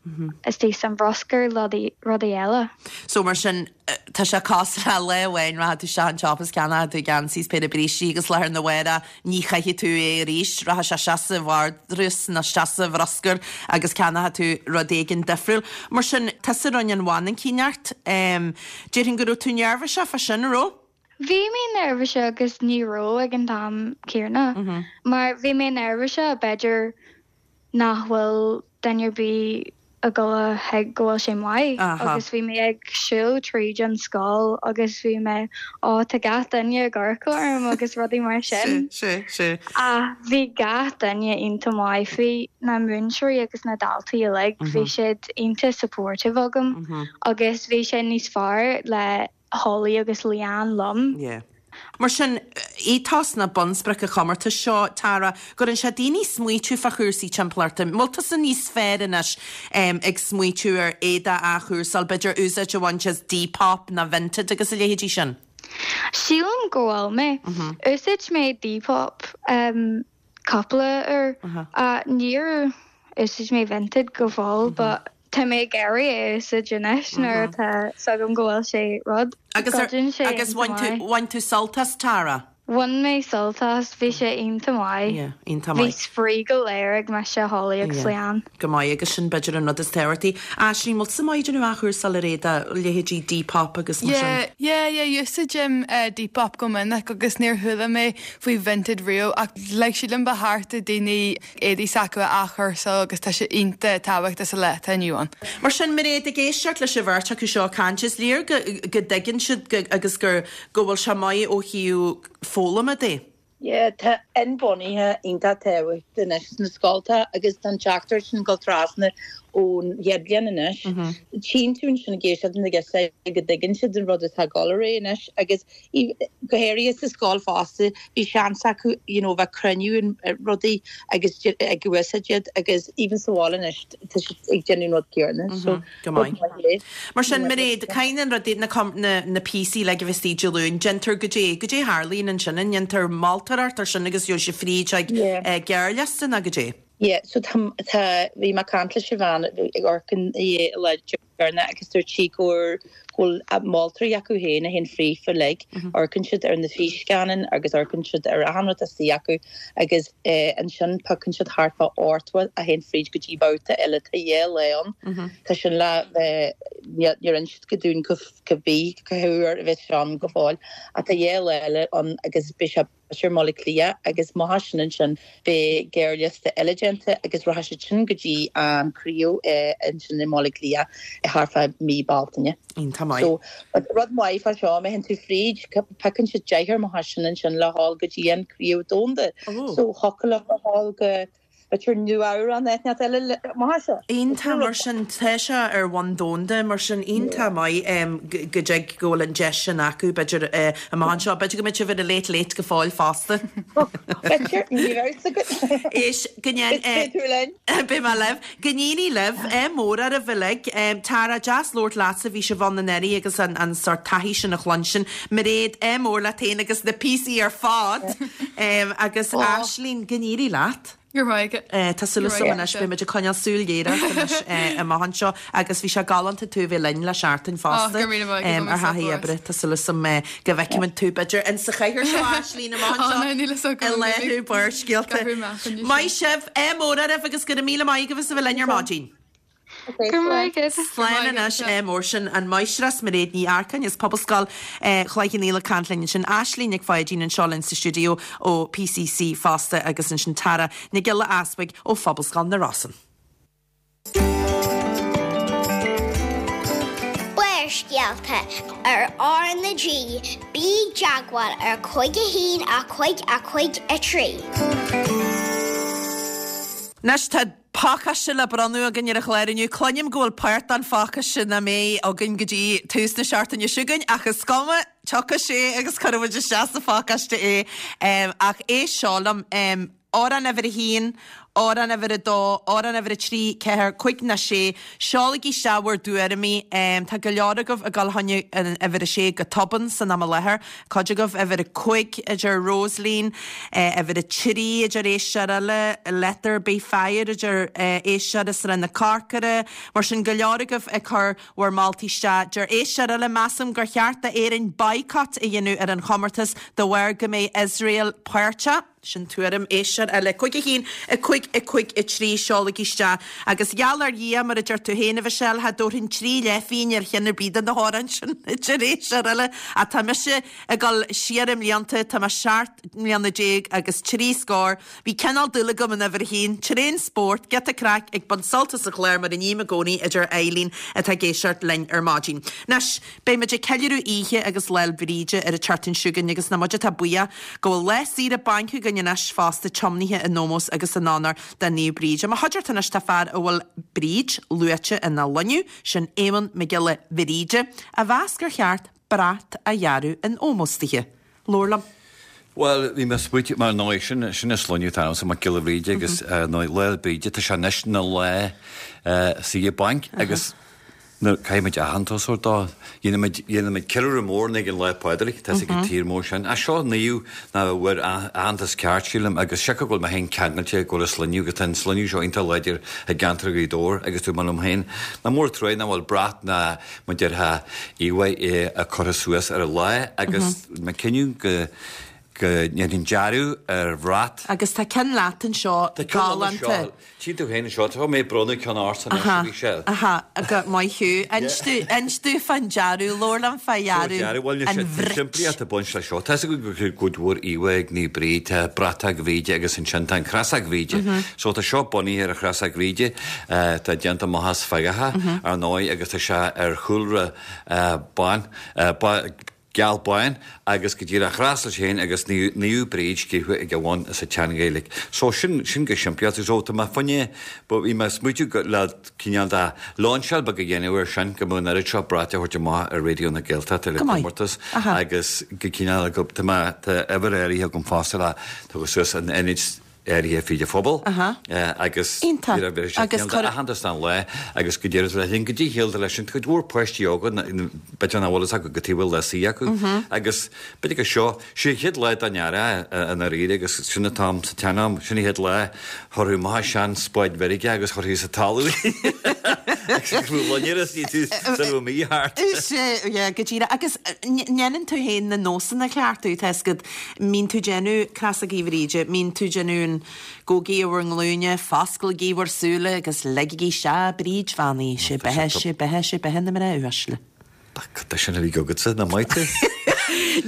istigh san bhruscar, rudaí eile. So mar sin, tá sé cosúil le lá amháin rachaidh tú isteach an tsiopa is ceannóidh tú geansaí is péire brístí agus lá arna mhárach ní chaithfidh tú é arís, rachaidh sé isteach sa vardrús nó isteach sa bhruscar agus ceannóidh tú rud éigin difriúil. Mar sin, tusa a rinne an mhainicíneacht. Déarfainn go raibh tú neirbhíseach fá sin, an raibh? Bhí mé neirbhíseach agus ní raibh ag an t-am céanna mar bhí mé neirbhíseach b'fhéidir nach bhfuil duine ar bith. ag dul a thuig go bhfuil sé maith agus bhí mé ag siúl tríd an scoil agus bhí mé ó tá gach duine ag amharc orm agus rudaí mar sin. Sea, sea. Ach bhí gach duine iontach maith, bhí na múinteoirí agus na daltaí uilig, bhí siad iontach supportive agam agus bhí sé níos fearr le Holly agus Leanne liom. Yeah. Mar sin, ethos nó bunsprioc an chomórtais seo, Tara, cuireann sé daoine smaoitiú fá chúrsaí timpeallachta. An bhfuil tusa níos fearr anois ag smaoitiú ar éadaí a athchúrsáil, b'fhéidir úsáid a bhaint as Depop nó Vinted agus a leithéidí sin? Sílim go bhfuil mé. Úsáid mé Depop. cúpla uair. Níor úsáid mé Vinted go fóill but tá mé ag iarraidh é a úsáid anois nuair atá 's agam go bhfuil sé rud. Agus agus bhain tú bhain tú sult as Tara? Bhain mé sult as, bhí sé iontach maith. Yeah, iontach maith. Bhí spraoi go léir ag mise, Holly agus Leanne. Go maith agus sin b'fhéidir an rud is tábhachtaí. Aisling, bhfuil tusa maith ag déanamh athchúrsáil ar éadaí, leithéidí Depop agus mar sin? Yeah, yeah, yeah, úsáidim Depop go minic agus níor chuala mé faoi Vinted riamh ach like sílim ba cheart do daoine éadaí s'acu a athchúrsáil agus tá sé iontach tábhachtach sa lá atá inniu ann. Mar sin, Mairéad, ag éisteacht leis an bheirt acu seo ag caint, is léir go go dtuigeann siad go agus gur go bhfuil sé maith ó thaobh foghlama de. Yeah, tá inbhuanaithe iontach tábhachtach anois sna scolta agus tá an teachtaireacht sin ag dul trasna ón chéad bhliain anois. Tchíonn tú ansin ag éisteacht na girseacha go dtuigeann siad an rud atá ag dul ar aghaidh anois agus Go háirithe sa scoil fosta, bhí seans acu you know bheith cruinniú rudaí agus ag úsáid iad agus even sa bhaile anois tá siad ag déanamh an rud céanna so Go maith. Mar sin Mairéad, caithfidh na rudaí, na na píosaí uilig a bheith istigh Dé Luain, déantar goidé, goidé a tharlaíonn ansin, an ndéantar moltóireacht ar sin agus gheobhaidh sibh fríd ag gearrliosta nó goidé? Yeah, so tá, tá, bhí mé ag caint leis an bhean ag amharc an lá deireanach agus dúirt sí go bhfuil moltóirí acu féin a théann fríofa uilig, amharcann siad ar na físscannáin agus amharcann siad ar achan rud istigh acu agus ansin piocann siad thart fá 80 a théann fríd go dtí babhta eile, tá dhá lá ann, tá sin le bheith, níor inis siad go dúinn cá bith, cá huair a bheas sé ann go fóill ach tá dhá lá eile ann agus beidh sé i mBaile Átha Cliath agus amach as sin ansin beidh gearrliosta eile déanta agus rachaidh siad sin go dtí an craobh ansin i mBaile Átha Cliath thart fá mí Bealtaine. Iontach maith. So rud maith fá seo, má théann tú fríd, piocann siad deichniúr amach as sin ansin le dhul go dtí an craobh domhanda. So thiocfadh leo a dhul go B'fhéidir Nua-Eabhrac nó áit eile amach as seo. Iontach mar sin, tá sé ar bhonn domhanda mar sin, iontach maith go dtig go bhfuil an deis sin acu b'fhéidir amach anseo. B'fhéidir go mbeidh sibh ar an Late Late go fóill fosta. B'fhéidir, ní raibh fhios agat. Éist, go ndéan. Beidh tú linn. Beidh mé libh. Go n-éirí libh, ádh mór oraibh uilig. Tara, deas labhairt leatsa, bhí sibh ann anuraidh agus an sórt taithí sin a chluinstin. Mairéad, ádh mór leat féin agus na píosaí ar fad. Agus Aisling, go n-éirí leat. Go raibh maith agat. Tá súil agam anois, beidh muid ag coinneáil súil ghéar ort anois amach anseo agus bhí sé galánta tú a bheith linn le seachtain fosta ar thaithí oibre. Tá súil agam go bhfeicfimid tú b'fhéidir in sa chathaoir seo Aisling amach anseo i láthair Barrscéalta. Maith sibh, ádh mór oraibh agus go raibh míle maith agaibh as a bheith linn ar maidin. Go raibh maith agat. Slán anois, ádh mór sin an Máistreás Mairéad Ní Earcáin as Pobalscoil Chloich Cheann Fhaola ag caint linn ansin, Aisling Nic Pháidín anseo linn sa stiúideo ó PCC fosta agus ansin Tara Nic Giolla Easbuig ó Phobalscoil na Rosann. Barrscéalta ar R na G, bí i dteagmháil ar 5 1 5 5 3. Anois tá pacáiste le bronnadh againn ar an chlár inniu. Cluinim go bhfuil páirt den phacáiste nach mbeidh againn go dtí tús na seachtaine seo chugainn, ach is cuma, tiocfaidh sé agus cuirfidh muid isteach sa phacáiste é. Ach éist seo liom, amhrán uimhir a haon, amhrán uimhir a dó, amhrán uimhir a trí, ceathair, cúig nó sé, seolaigí isteach bhur dtuairimí. Tá go leor agaibh ag dul fá choinne an uimhir a sé go tobann san am i láthair. Cuid agaibh uimhir a cúig a deir Rosaleen, uimhir a trí a deir éisteoir eile, Let There Be Fire a deir éisteoir i Srath na Corcora. Mar sin, go leor agaibh ag cur bhur moltaí isteach. Deir éisteoir eile, Measaim gur cheart d'Éirinn boycott a dhéanamh ar an chomórtas de bharr go mbeidh Iosrael páirteach. Sin tuairim éisteoir eile. 5 1 5 5 3 Seolaigí isteach. Agus gheall ar Dhia, mar a deir tú féin, a Mhichelle, cha dtabharfainn 3 leathphingin ar cheann ar bith de na hamhráin sin, a deir éisteoir eile. Ach tá mise ag dul siar i mblianta, tá mé 17 mbliana agus 3 scór. Bhí cineál dúil agam in uimhir a haon, tréan spórt, giota craic, ag baint sult as an chlár mar a ním i gcónaí, a deir Eileen atá ag éisteacht linn ar maidin. Anois. Beidh muid ag ceiliúradh Oíche agus Lá 'le Bríde ar an tseachtain seo chugainn agus nach muid atá buíoch go bhfuil lá saoire bainc againn anois fosta tiomnaithe in ómós agus in onóir do Naomh Bríd. I mo chuideachta anois tá fear a bhfuil Bríd luaite ina shloinne, sin Éamonn Mac Giolla Bhríde, a mheas gur cheart brat a dhearadh in ómós dithe. Labhair liom. Bhuel, bhí mé ag smaoitiú, mar ndóigh, sin, sin an sloinne atá agamsa, Mac Giolla Bhríde, agus ar ndóigh, Lá 'le Bríde, tá sé anois ina lá saoire bainc agus nuair, caithfidh muid aitheantas a thabhairt dó. Dhéanfaimid, dhéanfaimid ceiliúradh mór ag an Lá Pádraig, tá 'fhios ag an tír mór sin. Ach seo naomh nach bhfuair aitheantas ceart, sílim, agus siocair go bhfuil mé féin ceangailte go bhfuil an sloinne, agus tá an sloinne seo iontach láidir i gceantar Ghaoth Dobhair agus dúirt mé liom féin, nach mór truaighe nach bhfuil brat ná mar déarfá íomhá curtha suas ar an lá agus mé cinneadh go go ndéanfainn dearadh ar bhrat. Agus tá ceann leat anseo galánta. Tchí tú féin anseo, tá mé ag bronnadh ceann ortsa anois a Mhichelle. Aha, aha, maith thú. Inis domh, inis domh fán dearadh, labhair liom fá dhearadh bhuel, an bhrait. Simplíocht ag baint leis seo. Tá 'fhios againn go bhfuil cuid mhór íomhá ag Naomh Bríd, tá bratach Bhríde agus ansin tá an chreasach Bhríde. So tá seo bunaithe ar an chreasach Bhríde, tá déanta amach as feagacha, ar ndóigh, agus tá sé ar chúlra bán, geal bán, agus go díreach chreas leis féin agus Naomh Bríd scríofa ag a bhun sa tSean-Ghaeilge. So sin, sin go simplí. So tá mé fá choinne, bhí mé ag smaoitiú le cineál de lainseáil beag a dhéanamh air sin, go mbeadh an oiread seo brait a thabhairt amach ar Raidió na Gaeltachta le comórtas agus go cineál, tá mé, tá uimhir áirithe agam fosta le tabhairt suas in ionaid áirithe fríd an phobal agus aitheantas don lá agus go díreach le linn go dtí shaolta leis an cuid mhór páistí óga b'fhéidir nach bhfuil fhios acu cad chuige a bhfuil lá saor acu agus b'fhéidir go seo sé an chéad lá den earrach i ndáiríre agus sin an t-am sa tsean-am sin an chéad lá chuirfí amach sean spáid mheirge agus chuirfí sa talamh agus go raibh loinnir as ní tú sula raibh mí thart. Sea, yeah, go díreach. Agus ndéanann tú féin na nósanna a chleachtadh, tá 'fhios agat, Mbíonn tú déanamh Creasaigí Bhríde, mbíonn tú déanamh an Gabhaigí ar bhur nglúine, fosclaigí bhur súile agus leigigí isteach Bríd bheannaithe, sé beatha, sé beatha, sé beatha na mná uaisle. Cad é sin a bhí agatsa, nach maith tú?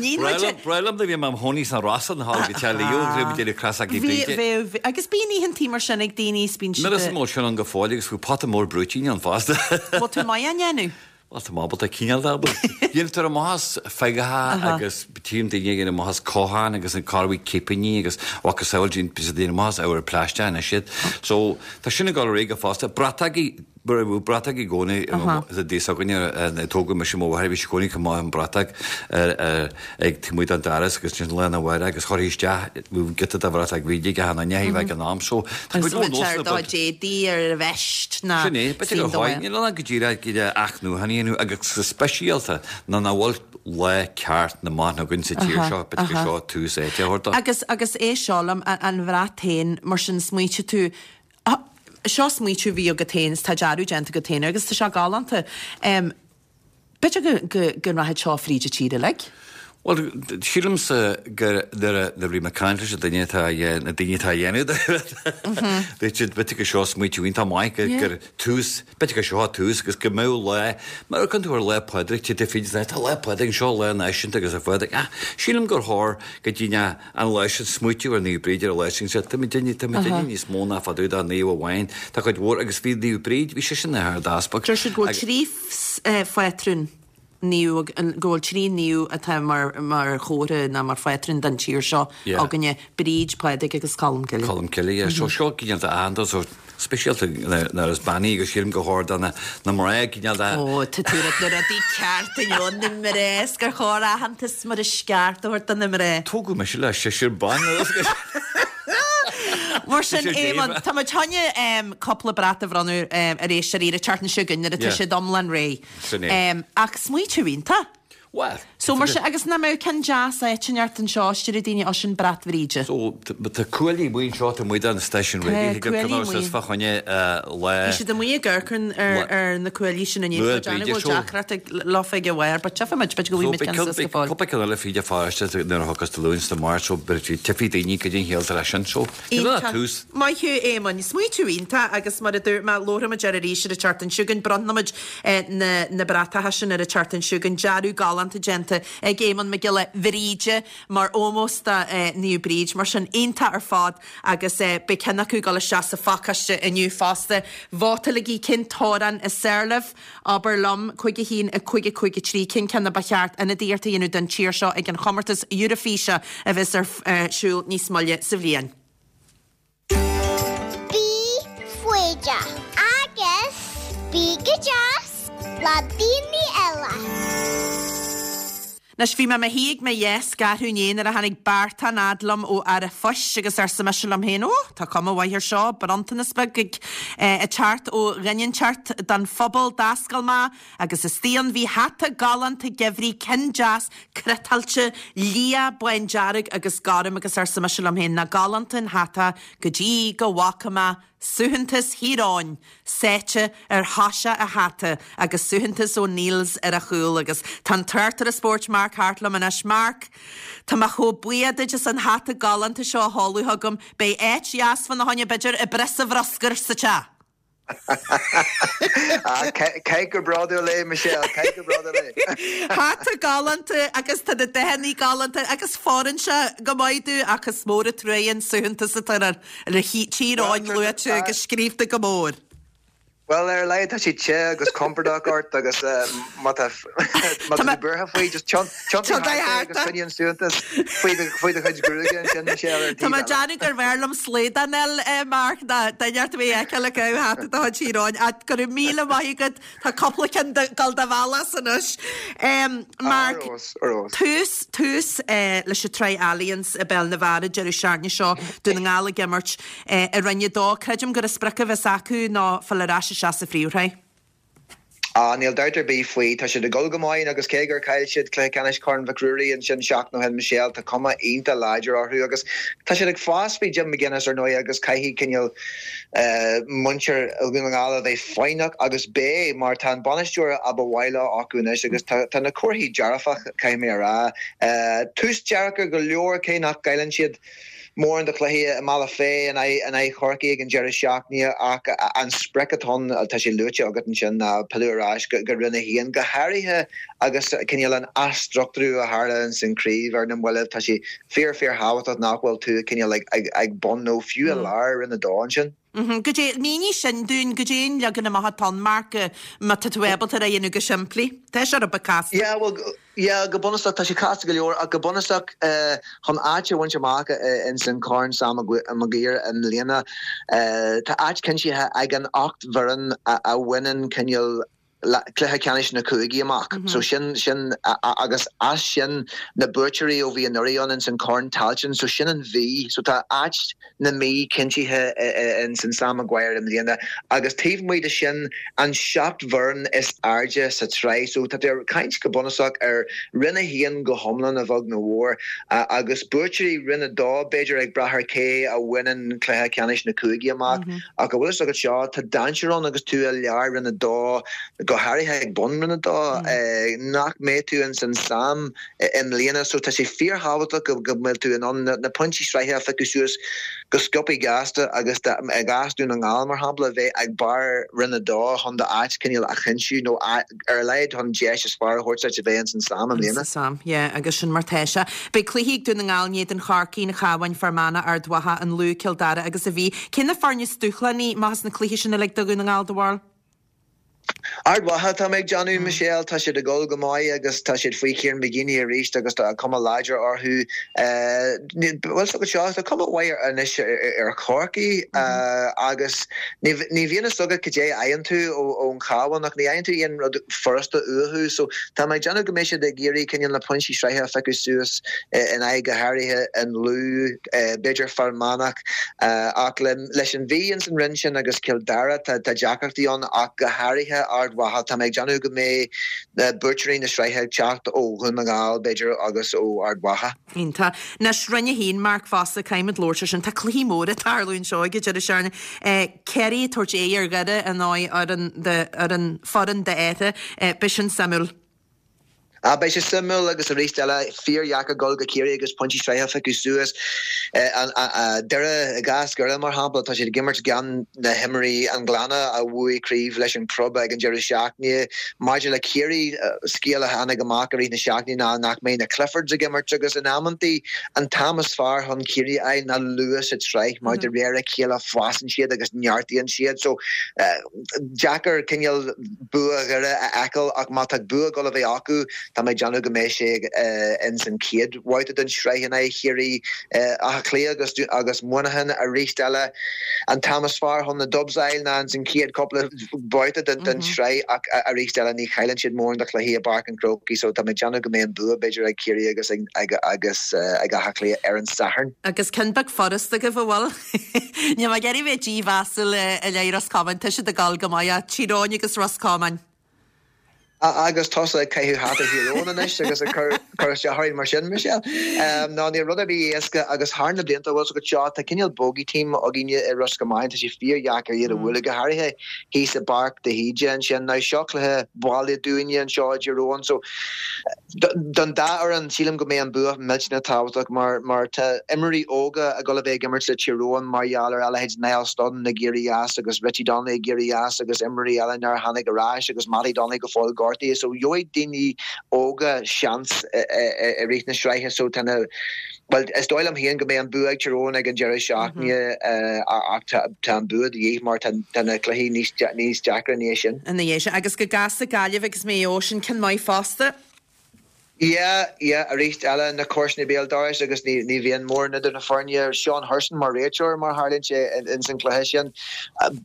Níl muid a. Breá liom nuair a bhí mé im chónaí sna Rosa na hAll go Teach Leo agus bhí muid ag déanamh Creasaigí Bhríde. Bhí, bhí, agus bíonn oícheantaí mar sin ag daoine is bíonn siad. Nuair is mó sin ann go fóill agus bhí pota mór brúitín ann fosta. Bhfuil tú maith á ndéanamh? Bhuel, tá mé ábalta, cineál de ábalta. Déantar amach as feagacha agus tchím daoine ag déanamh amach as cochán agus an corraí cipíní agus macasamhail déantar amach as ábhar plaisteach anois iad. So, tá sin ag dul ar aghaidh go fosta. Brataigí, bhí bratach i gcónaí sa dtigh s'againne, tógadh mise mo mháthair, bhí sí i gcónaí chomh maith an bratach ag taobh amuigh den doras agus ansin lá arna mhárach agus chuirfí isteach giota de bhratach Bhríde ag achan duine a bheadh ag an am. So, tá cuid mhór nósanna beag. D'éadaí ar a veist ná Sin é, b'fhéidir gur chóir, níl ann ach go díreach iad a athnuachan a dhéanamh agus go speisialta nuair nach bhfuil lá ceart na mban againn sa tír seo, b'fhéidir gur seo tús áite a thabhairt dó. Agus, agus é seo liom, an bhrat féin, mar sin smaoitigh tú, seo smaoitiú a bhí agat féin is tá dearadh déanta agat féin air agus tá sé galánta. B'fhéidir go, go rachaidh seo fríd an tír uilig? Bhuel, sílimse gur nuair a bhí mé ag caint leis an duine atá, na daoine atá á dhéanamh, dúirt siad, b'fhéidir gur seo smaoitiú iontach maith, gur, gur tús, b'fhéidir gur seo tús agus go mbeadh lá, mar a amharcann tú ar Lá Pádraig, téann tú fríd, tá Lá Pádraig anseo, lá náisiúnta agus ar Phádraig, ach sílim gur chóir go dtí an lá sin smaoitiú ar Naomh Bríd ar an lá sin, sea, tá muid tá muid níos mó ná fá dtaobh de naomh amháin, tá cuid mhór, agus bhí Naomh Bríd, bhí sise ina hArd-Easpag. Deir siad go bhfuil 3 phátrún naomh, go bhfuil 3 naomh atá mar mar chomhartha nó mar phátrún don tír seo againne, Bríd, Pádraig agus Colm Cille. Colm Cille, yeah. So seo cineál de aitheantas, so speisialta nuair is bean í agus sílim gur chóir do na mná cineál de. Ó, tá tú ag rá na rudaí ceart inniu, na mná, is gur chóir aitheantas mar is ceart a thabhairt do na mná. Tógadh mise le seisear ban. Mar sin, Éamonn, tá muid chun cúpla brat a bhronnadh ar éisteoirí ar an tseachtain seo chugainn nuair atá siad iomlán réidh. Sin é. Ach smaoitiú iontach. Bhuel, So mar sin, agus nach mbeadh ceann deas áit inteacht anseo, is déarfadh daoine, ó sin brat Bhríde. So, tá cuaillí amuigh anseo, tá amuigh don stáisiún Tá raidió, thig cuaillí go amuigh. is fá choinne lá. Bhí siad amuigh ag amharc ar ar na cuaillí sin inné, Lá tá déanamh Bríde go bhfuil so. deacracht ag leofa ag a bharr, but tchífidh muid, b'fhéidir go So bhfaighidh muid beidh ceann suas go fóill. cúpla ceann eile fríd an pharóiste nuair a thiocfas Dé Luain is Dé Máirt so beidh tchífidh daoine goidé an chiall atá leis sin. So, níl ach Iontach. tús. Maith thú, Éamoinn. Smaoitiú iontach agus mar a dúirt mé, labharfaidh muid air arís ar an tseachtain seo chugainn. Bronnfaidh muid na na bratacha sin ar an tseachtain seo chugainn. Dearadh galánta déanta ag Éamonn Mac Giolla Bhríde mar ómós do Naomh Bríd. Mar sin, iontach ar fad agus beidh ceann acu ag dul isteach sa phacáiste inniu fosta. Vótálaigí cén t-amhrán is fearr libh? Abair liom, 5 1 5 5 3, cén ceann a ba cheart ionadaíocht a dhéanamh don tír seo ag an chomórtas Eurofíse a bheas ar siúl níos moille sa bhliain. Bí foighdeach agus bí go deas le daoine eile. Anois, bhí mé i mo shuí ag mo dheasc arú inné nuair a tháinig beartán fhad liom ó fhear an phoist agus arsa mise liom féin, Ó, tá cuma mhaith air seo, bronntanas beag ag teacht ó dhuine inteacht don phobal. D'oscail mé agus istigh ann bhí hata galánta geimhridh, ceann deas cniotáilte, liath, bándearg agus gorm agus arsa mise liom féin, nach galánta an hata go dtí go bhfaca mé Suaitheantas Thír Eoghain sáite ar thoiseach an hata agus suaitheantas O'Neills ar a chúl agus tá an tráchtaire spóirt Mark Harte liom anois. Mark, tá mé chomh buíoch duit as an hata galánta seo a sheoladh chugam. Beidh áit dheas fána choinne b'fhéidir i bpriosa bhruscair sa teach. Caith go bródúil é, Michelle, caith go bródúil é. Hata galánta agus tá na dathanna galánta agus fóireann sé go maith domh ach is mór an truaighe an suaitheantas atá air. Le Tír Eoghain luaite agus scríobhta go mór. Bhuel, ar a laghad tá sé te agus compordach ort agus má tá tú buartha faoi, just tiontaigh thart é agus coinnigh an suaitheantas faoi do chuid gruaige ansin, Michelle, ar an Tá taobh mé ag eile. déanamh gurbh fhearr liom slaghdán a fháil, Mark, ná duine ort a bheith a fheiceáil ag caitheamh hata de chuid Thír Eoghain. Ach go raibh míle maith agat Tá cúpla ceann ag dul do bhealach as anois. Mark, tús, tús leis an tsraith Allianz i bPeil na bhFear an deireadh seachtaine seo, Dún na nGall ag imirt i Roinn 2. Creidim gur an sprioc a bheas acu ná fáil ar ais isteach sa phríomhshraith. Ah, níl dabht ar bith faoi. Tá siad ag dul go maith agus cé gur chaill siad cluiche ceannais Chorn Mhic Ruairí ansin seachtain ó shin, Michelle, tá cuma iontach láidir orthu agus tá siad ag fás faoi Jim McGuinness ar ndóigh agus caithfidh cineál muintir Dhún na nGall a bheith foighneach agus beidh, mar tá an bainisteoir a ba mhaith leo acu anois agus tá na comharthaí dearfach, caithfidh mé a rá. Tús deacair go leor cé nach gcailleann siad mórán de chluichí i mBealach Féich in aghaidh Chorcaí ag an deireadh seachtaine ach an sprioc atá ann, tá sé luaite agat ansin, ná pilleadh ar ais go Roinn 1, go háirithe agus cineál an athstruchtúrú a tharla ins an chraobh ar na mallaibh. Tá sé fíor fíor thábhachtach nach bhfuil tú cineál ag bun nó fiú i lár Roinn 2 ansin. Goidé, mínigh sin dúinn, goidé an leagan amach atá ann, Mark, má tá tú ábalta é a dhéanamh go simplí. Tá sé rud beag casta. Yeah, bhuel, yeah, go bunúsach, tá sé casta go leor, ach go bunúsach, chun áit a bhaint amach ins an Corn Sam Maguire i mbliana, tá áit cinntithe ag an 8 bhfoireann a bhaineann cineál cluiche ceannais na cúigí amach. So sin, sin, agus as sin na buaiteoirí ó bhí anuraidh ann ins an Corn Tailteann, so sin an Mhí. So tá áit na Mí cinntithe ins an Sam Maguire i mbliana agus taobh amuigh de sin an 7 bhfoireann is airde sa tsraith. So tá tú ag caint go bunúsach ar Roinn 1 go hiomlán a bheag nó a mhór agus buaiteoirí Roinn 2 b'fhéidir ag brath ar cé a bhaineann cluiche ceannais na cúigí amach. Ach an bhfuil fhios agat seo, tá dainséar ann agus tú i lár Roinn 2, go háirithe ag bun Roinn 2, nach mbeidh tú ins an Sam i mbliana. So tá sé fíorthábhachtach go mbeidh tú in ann na pointí sraithe a phiocadh suas go sciobthaí gasta agus i gcás Dún na nGall, mar shampla, bheith ag barr Roinn 2 chun d'áit cineál a chinntiú nó ar a laghad chun deis is fearr a thabhairt duit a bheith ins an Sam i mbliana. Ins an Sam, yeah, agus sin mar tá sé. Beidh cluichí ag Dún na nGall in éadan Chorcaí, an Chabháin, Fear Manach, Ard Mhacha, an Lú, Cill Dara agus an Mhí. Cé na foirne is dúshlánaí amach as na cluichí sin uilig do Dhún na nGall, do bharúil? Ard Mhacha, tá mé ag déanamh, Michelle. Tá siad ag dul go maith agus tá siad faoi Kieran McGeeney arís agus tá cuma láidir orthu. Bhfuil fhios agat seo, tá cuma mhaith anois ar Chorcaigh agus ní bhíonn fhios agat cad é a fhaigheann tú ón Chabhán ach ní fhaigheann tú aon rud furasta uathu so tá mé ag déanamh go mbeidh siad ag iarraidh cineál na pointí sraithe a phiocadh suas in aghaidh go háirithe an Lú, b'fhéidir Fear Manach ach leis an Mhí ins an roinn sin agus Cill Dara tá deacrachtaí ann ach go háirithe Ard. Ard Mhacha. Tá mé ag déanamh go mbeidh buaiteoirí na sraithe ag teacht ó Dhún na nGall, b'fhéidir, agus ó Ard Mhacha. Iontach. Anois, Roinn 1, Mark fosta, caithfimid labhairt ar sin. Tá cluichí móra ag tarlú anseo ag an deireadh seachtaine. Ciarraí ag tabhairt aghaidh ar Dhoire in aghaidh foireann d'Fheartha. Beidh sin suimiúil. Ah, beidh sé suimiúil agus arís eile, fíordheacair dul go Ciarraí agus pointí sraithe a phiocadh suas. Doire, i gcás Dhoire mar shampla, tá siad ag imirt gan na himreoirí an Ghleanna a bhuaigh craobh leis an club ag an deireadh seachtaine. Maidir le Ciarraí, scéal a tháinig amach i rith na seachtaine ná nach mbeidh na Cliffords ag imirt agus in amantaí an t-am is fearr chun Ciarraí a fháil ná luath sa tsraith mar de réir a chéile fásann siad agus neartaíonn siad. So, deacair cineál bua Dhoire a fheiceáil ach má tá bua ag dul a bheith acu, tá mé ag déanamh go mbeidh sé ins an chéad bhabhta den tsraith in aghaidh Chiarraí. Áth Cliath agus agus Muineachán arís eile. An t-am is fearr chun na Dubs a fháil ná ins an chéad cúpla babhta den tsraith ach arís eile ní chailleann siad mórán de chluichí i bPáirc an Chrócaigh so tá mé ag déanamh go mbeidh an bua b'fhéidir ag Ciarraí agus ag agus ag Áth Cliath ar an Satharn. Agus ceann beag furasta agaibh, an bhfuil? Níl mé ag iarraidh bheith dímheasúil i leith Ros Comáin, tá siad ag dul go maith, ach Tír Eoghain agus Ros Comáin. Agus tusa ag caitheamh hata Thír Eoghain anois agus ag cur isteach orainn mar sin, Michelle. Ná níl rud ar bith éasca agus thar na blianta, bhfuil 's agat seo, tá cineál bogey team againne i Ros Comáin, tá sé fíordheacair iad a bhualadh, go háirithe thíos i bPáirc de hÍde ansin. Now seo cluiche baile dúinne anseo i dTír Eoghain so Don dá fhoireann, sílim go mbeidh an bua millteanach tábhachtach mar mar tá imreoirí óga ag dul a bheith ag imirt le Tír Eoghain mar gheall ar a leithéid Niall Studdon ag éirí as agus Richie Donnelly ag éirí as agus imreoirí eile nár tháinig ar ais agus Mattie Donnelly go fóill gortaithe so gheobhaidh daoine óga seans i rith na sraithe so tá na Bhuel, is dóigh liom féin go mbeidh an bua ag Tír Eoghain ag an deireadh seachtaine ach tá an bua de dhíth mar tá na cluichí níos deacra ina dhiaidh sin. Ina dhiaidh sin. Agus go gasta Gaillimh agus Maigh Eo, sin ceann maith fosta. Yeah, yeah, arís eile, na comharsana béal dorais agus ní bhíonn mórán idir na foirne. Seán Hurson mar réiteoir mar tharlaíonn sé ins an cluiche sin.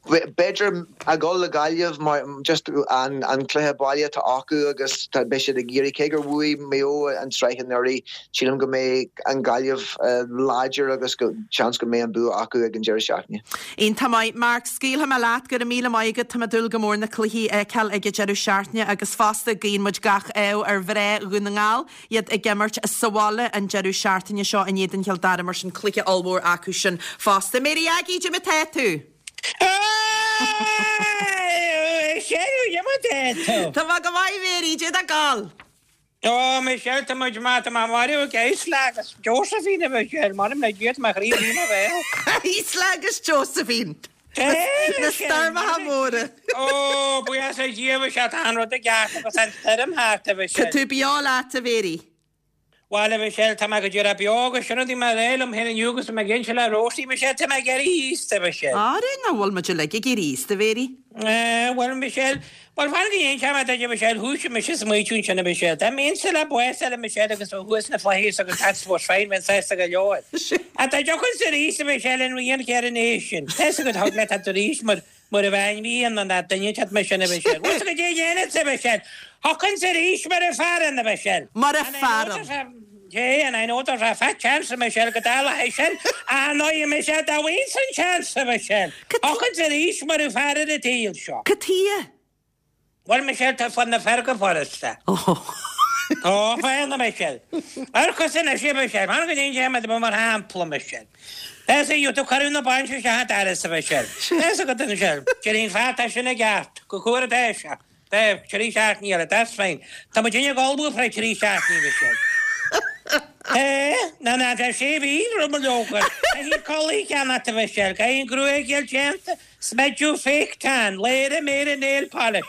B'fhéidir a dhul le Gaillimh mar just an cluiche baile atá acu agus beidh siad ag iarraidh, cé gur bhuaigh Maigh Eo an tsraith anuraidh, Sílim go mbeidh an Ghaillimh láidir agus go seans go mbeidh an bua acu ag an deireadh seachtaine. Iontach maith. Mark, scaoilfidh mé leat. Go raibh míle maith agat. Tá mé ag dúil go mór na cluichí a fheiceáil ag an deireadh seachtaine agus fosta guíonn muid gach ádh ar mhná Dhún na nGall, iad ag imirt sa bhaile an deireadh seachtaine seo in éadan Chill Dara mar sin cluiche ollmhór acu sin fosta. Mary Aggie, cad é mar atá tú? Tá mé go maith Mary, cad é tá ag gabháil? Ó, Michelle, tá muid maith, tá mé marbh ag Isla agus Josephine, a Mhichelle, m'anam le Dia, tá mo chroí i mo bhéal. Isla agus Josephine! Na stoirmeacha móra! Ó, buíochas le Dia, a Mhichelle, tá an rud i gceart agus an stoirm thart, a Mhichelle. Tá tú beo leat, a Mhary. Bhuel, a Mhichelle, tá mé go díreach beo agus sin rud a bhí mé a rá liom féin inniu agus tá mé ag inse le Rosie, Michelle, tá mé ag éirí aosta, a Mhichelle. Ara, nach bhfuil muid uilig ag éirí aosta, a Mhary? Bhuel, Michelle, bhuel, fan go n-inseoidh mé duit, a Mhichelle, thoisigh mise ag smaoitiú ansin, a Mhichelle. Dá mbeinnse le bás eile, a Mhichelle, agus bheith thuas sna flaithis agus that's was fine, bheinn sásta go leor. Ach dá dtiocfainnse arís, a Mhichelle, an rian céanna é sin. Tá 'fhios agat, thug le teacht arís mar, mar a bheinn rian an dá duine teacht mar sin, a Mhichelle. Bhfuil 'fhios agat cad é a dhéanfadsa, a Mhichelle? Thiocfainnse arís mar a fearann, a Mhichelle. Mar a fearann. Yea, and I know there's a fat chance, a Michelle, go dtarlóidh sé sin, ach ndóigh, a Michelle, dá bhfaighinn an seans, a Michelle, thiocfainnse arís mar a fear ar an tsaol seo. Cad chuige? Bhuel, Michelle, tá fonn na fear go furasta. Tá fonn, a Michelle. Amharc anois, a Michelle, fan go n-inseoidh mé duit mar shampla, Michelle. Tá 'fhios agat, cuireadh na bainse isteach an doras, a Michelle. Tá 'fhios agat, a Michelle, déarfainn fear, tá sin i gceart, go cúra tá sé. Beidh, 3 seachtainí eile, that's fine. Tá muid ag ullmhú fé 3 seachtainí Michelle. Eh, ná ná tá sé mhí roimh mo leoga. Caithfidh culaith a cheannacht a Mhichelle, caithfidh an gruaig a fháil déanta, smideadh, fake tan, léire, méire, nail polish.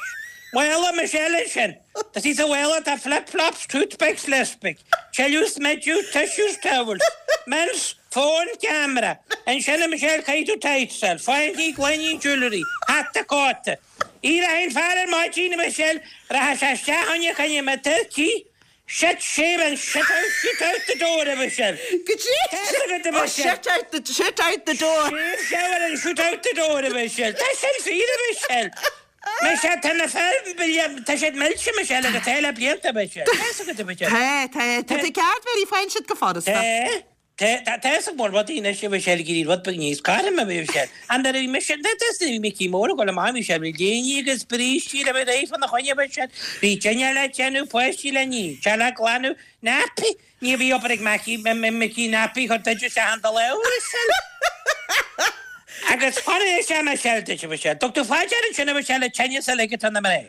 Mála Michelle ansin. Tá sí sa mhála, tá flip flops, toothpicks, lipstick, tuilleadh smideadh, tissues, towels, mints, phone, camera. Ansin a Michelle caithfidh tú tights a fháil, fáinní, gloiní, jewellery, hata, cóta. Éireoidh an fear ar maidin, a Mhichelle, rachaidh sé isteach fá choinne na turcaí, shit, shave and shit out, shit out the door, a Mhichelle. Go dtí Tá fhios agat, a Oh, Mhichelle. shit out the, shit out the door. Shave, shower and shoot out the door, a Mhichelle. Tá sin fíor, a Mhichelle. Michelle, tá na fir, tá siad millte, Michelle, agus tá le blianta, a Mhichelle. Tá fhios agat, a Mhichelle. Tá, tá, tá tú ceart, Mary, faigheann siad go furasta. Tá. Tá a fhios ag mór rudaí anois a Mhichelle ag iarraidh rud beag níos cothroime a Mhichelle. Ach nuair a bhí mise, nuair a bhí Micí Mór ag dul amach bhí sé bhí léiní agus brístí le bheith réidh fána choinne a Mhichelle. Bhí dinnéar le déanamh, páistí le ní, teach le glanadh, nappy, ní bhí obair ag Micí, Micí nappy chur duit isteach an dul a Mhichelle. Agus fan anois a Mhichelle duit a Mhichelle. Dtug tú fá dear ansin a Mhichelle an tinneas uilig atá ar na mná.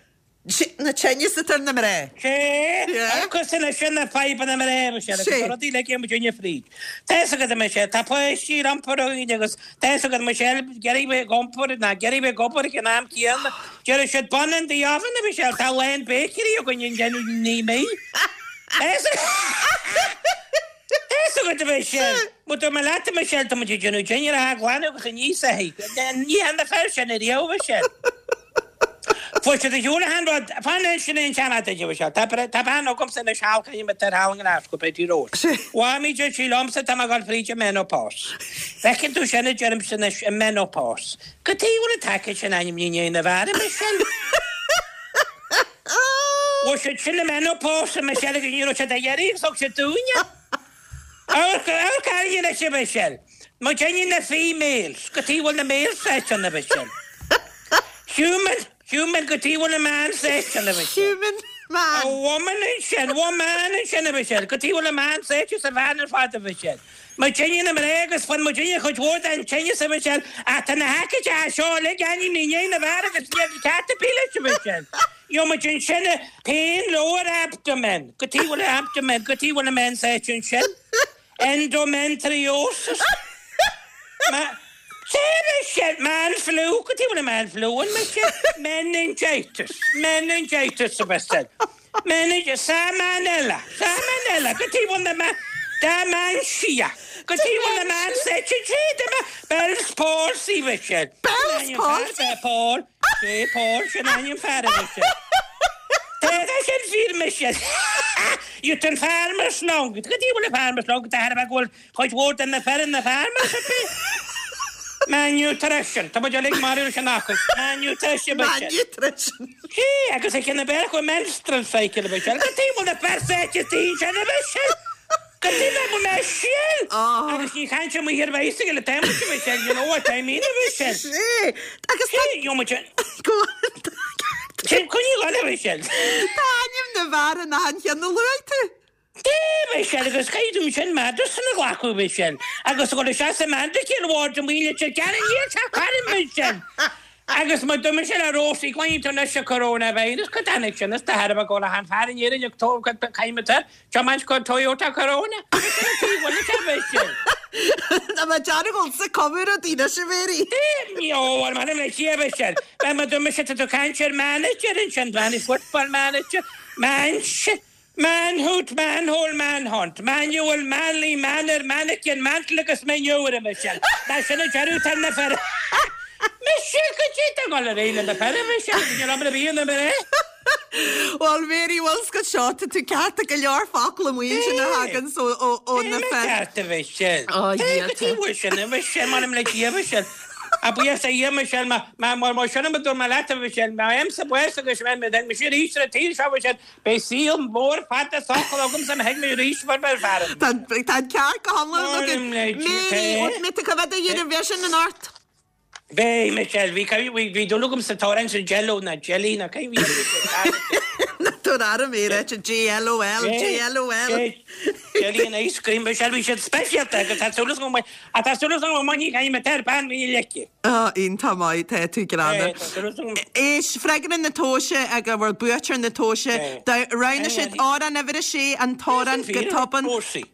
Na tinneas atá ar na mná. Sé, agus anois sin na fadhbanna mná, a Mhichelle, agus na rudaí uilig a muidinne fríd. Tá fhios agat, a Mhichelle, tá páistí le iompar againn agus tá fhios agat, a Mhichelle, ag iarraidh bheith ag iompar ná ag iarraidh bheith ag obair ag an am céanna. Deir siad, bun in the oven, a Mhichelle, tá a lán bakery againn ag déanamh ní mí. Tá fhios Tá fhios agat, a Mhichelle, má tá mé leat, a Mhichelle, tá muid ag déanamh dinnéar a ghlanadh agus a ní sa thigh. Ní hea na fir sin ariamh, a Mhichelle. Fuair siad a shiúl achan rud. Fan sin é an seanfhear duit, a Mhichelle. Tá tá bean agamsa anois thall caithfidh mé tar thall i nGlasgow, Betty Rose. Mhaimí deir sí liomsa tá mé ag dul fríd an menopause. Feiceann tú sin a deirimse anois, an menopause. Cad chuige a bhfuil an taicéad sin ainmnithe i ndiaidh na bhfear, a Mhichelle? Bhfuair siad sin an menopause, a Mhichelle, agus ní raibh siad á iarraidh agus thug siad dúinne. Amharc, amharc orainne anois, a Mhichelle. Muidinne na females, cad chuige a bhfuil na males sáite ann, a Mhichelle. Human, human, cad chuige a bhfuil na man sáite ann, a Mhichelle. Human, man. A woman ansin, woman ansin, a Mhichelle. Cad chuige a bhfuil na man sáite sa bhean ar fad, a Mhichelle. Muidinne na mná agus fuair muidinne cuid mhór den tinneas, a Mhichelle, ach tá na haicídí seo uilig ainmnithe i ndiaidh na bhfear agus níl ceart ar bith leis, a Mhichelle. Gheobhaidh muid ansin pain lower abdomen, cad chuige a bhfuil abdomen, cad chuige a bhfuil an men sáite ansin? Endometriosis. Ma, sé Michelle, man flu, cad chuige a bhfuil an man flu ann, Michelle? Meningitis, meningitis a Mhichelle. Meningitis, salmonella, salmonella, cad chuige a bhfuil na ma, dementia, cad chuige a bhfuil na man sáite ansin, Bell's palsy, Michelle. Bell's palsy? Paul. Sé Paul sin ainm fear a Mhichelle. Tá sin fíor Michelle. Youth an farmer's lung. Cad chuige a bhfuil an farmer's lung de thairbhe go bhfuil cuid mhór de na fir ina farmers ar bith. Malnutrition. Tá muid uilig marbh leis an fhocal. Malnutrition Michelle. Malnutrition. Sé agus ag na beir go menstrual cycle Michelle. Cad chuige a bhfuil na fir sáite sin a Michelle. Cad chuige a bhfuil Michelle. Agus ní chaint amuigh ar bicycle atá muid a Michelle, you know what I mean a Michelle. Sé. Agus tá. Gheobhaidh muid an. Go on. Sin coinníoll eile a Michelle. Tá ainm na bhfear in achan cheann a luaigh tú. Dé Michelle agus caithfidh tú sin medicine a ghlacadh Michelle. Agus a dhul isteach sa medical ward amuigh leat ar gearradh níl sé cothrom Michelle. Agus má d'imigh sé le Rósaí, cluineann tú anois an coronavirus, cad tháinig sin as de thairbhe go bhfuil achan fear in Éirinn ag tógáil caithfidh tiomáint go Toyota Corona? Agus sin an taobh bhaile sé bheith sin. Tá mé dearg sa comóradh daoine sin Mary. Ó, bhuel, m'anam le Dia bheith sin. Bheith má d'imigh sé tá tú caint ar manager ansin, man football manager, man Manhood, manhole, manhunt, manual, manly, manner, mannequin, mantle agus manure, a Michelle. Mar sin a deireadh tá na fir. Michelle, cad é tá ag dul ar aghaidh le na fir, a Michelle? Níl obair ar bith ionam ar aghaidh. Bhuel, Mary, bhfuil 's agat seo, tá tú ceart go leor focal amuigh ansin a thagann ó na Tá fir. ceart a Michelle. Ó, Tá, cad é bhfuil sin, a Michelle, m'anam le Dia, a Michelle. A buíochas a Dhia, a Michelle, má, má, má, má sin a dúirt mé leat, a Michelle, má fhaighimse bás agus má bheidh mise arís ar an tsaol seo, a Michelle, Beidh saol mór fada socair agamsa má thig mé arís mar bheir fear. Tá an ceart go hiomlán agat. Mary, mé tú coimhéad a dhéanamh bheith sin in ort. Bhí, Michelle, bhí, bhí dúil agam sa t-amhrán sin Jello ná Jelly ná cé bhí Ná tabhair aire mé ráite J-L-O-L, J-L-O-L. Jelly and ice cream, Michelle, bhí siad speisialta agus tá súil agam go mbeidh, tá súil agam go mbainfidh Jaime ar bean mhíle leici. Á, iontach maith, tá tú greannmhar. Éist, freagra na tomhaise ag a bhfuil buaiteoir na tomhaise, roghnaigh siad amhrán uimhir a sé, an t-amhrán go tobann,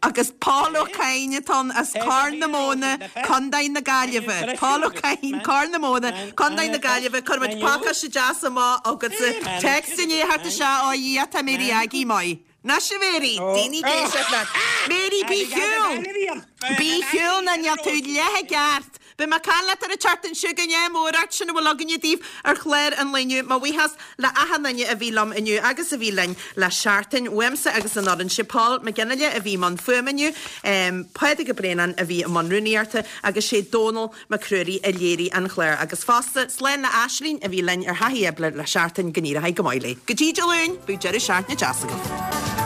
agus Paul Ó Cadhain atá ann as Corr na Móna, Contae na Gaillimhe. Paul Ó Cadhain, Corr na Móna, Contae na Gaillimhe, cuirfimid pacáiste deas amach agatsa. Text i ndiaidh theacht isteach, ó a Dhia, tá Mary Aggie maith. Anois a Mary, daoine ag éisteacht leat. Mary, bí chiúin! Bí chiúin ná níl tú leath i gceart. Beidh mé ag caint leat ar an tseachtain seo chugainn, ádh mór ort, sin a bhfuil againne daoibh ar chlár an lae inniu. Mo bhuíochas le achan duine a bhí liom inniu agus a bhí linn le seachtain. Uaimse agus an fhoireann, sé Paul Mac Fhionnghaile a bhí i mbun fuaime inniu, Pádraig Ó Braonáin a bhí i mbun rúnaíochta agus sé Dónal Mac Ruairí a léirigh an clár agus fosta, slán le Aislinn a bhí linn ar Thaithí Oibre le seachtain, go n-éireoidh go maith léi. Go dtí Dé Luain, bíodh deireadh seachtaine deas agaibh.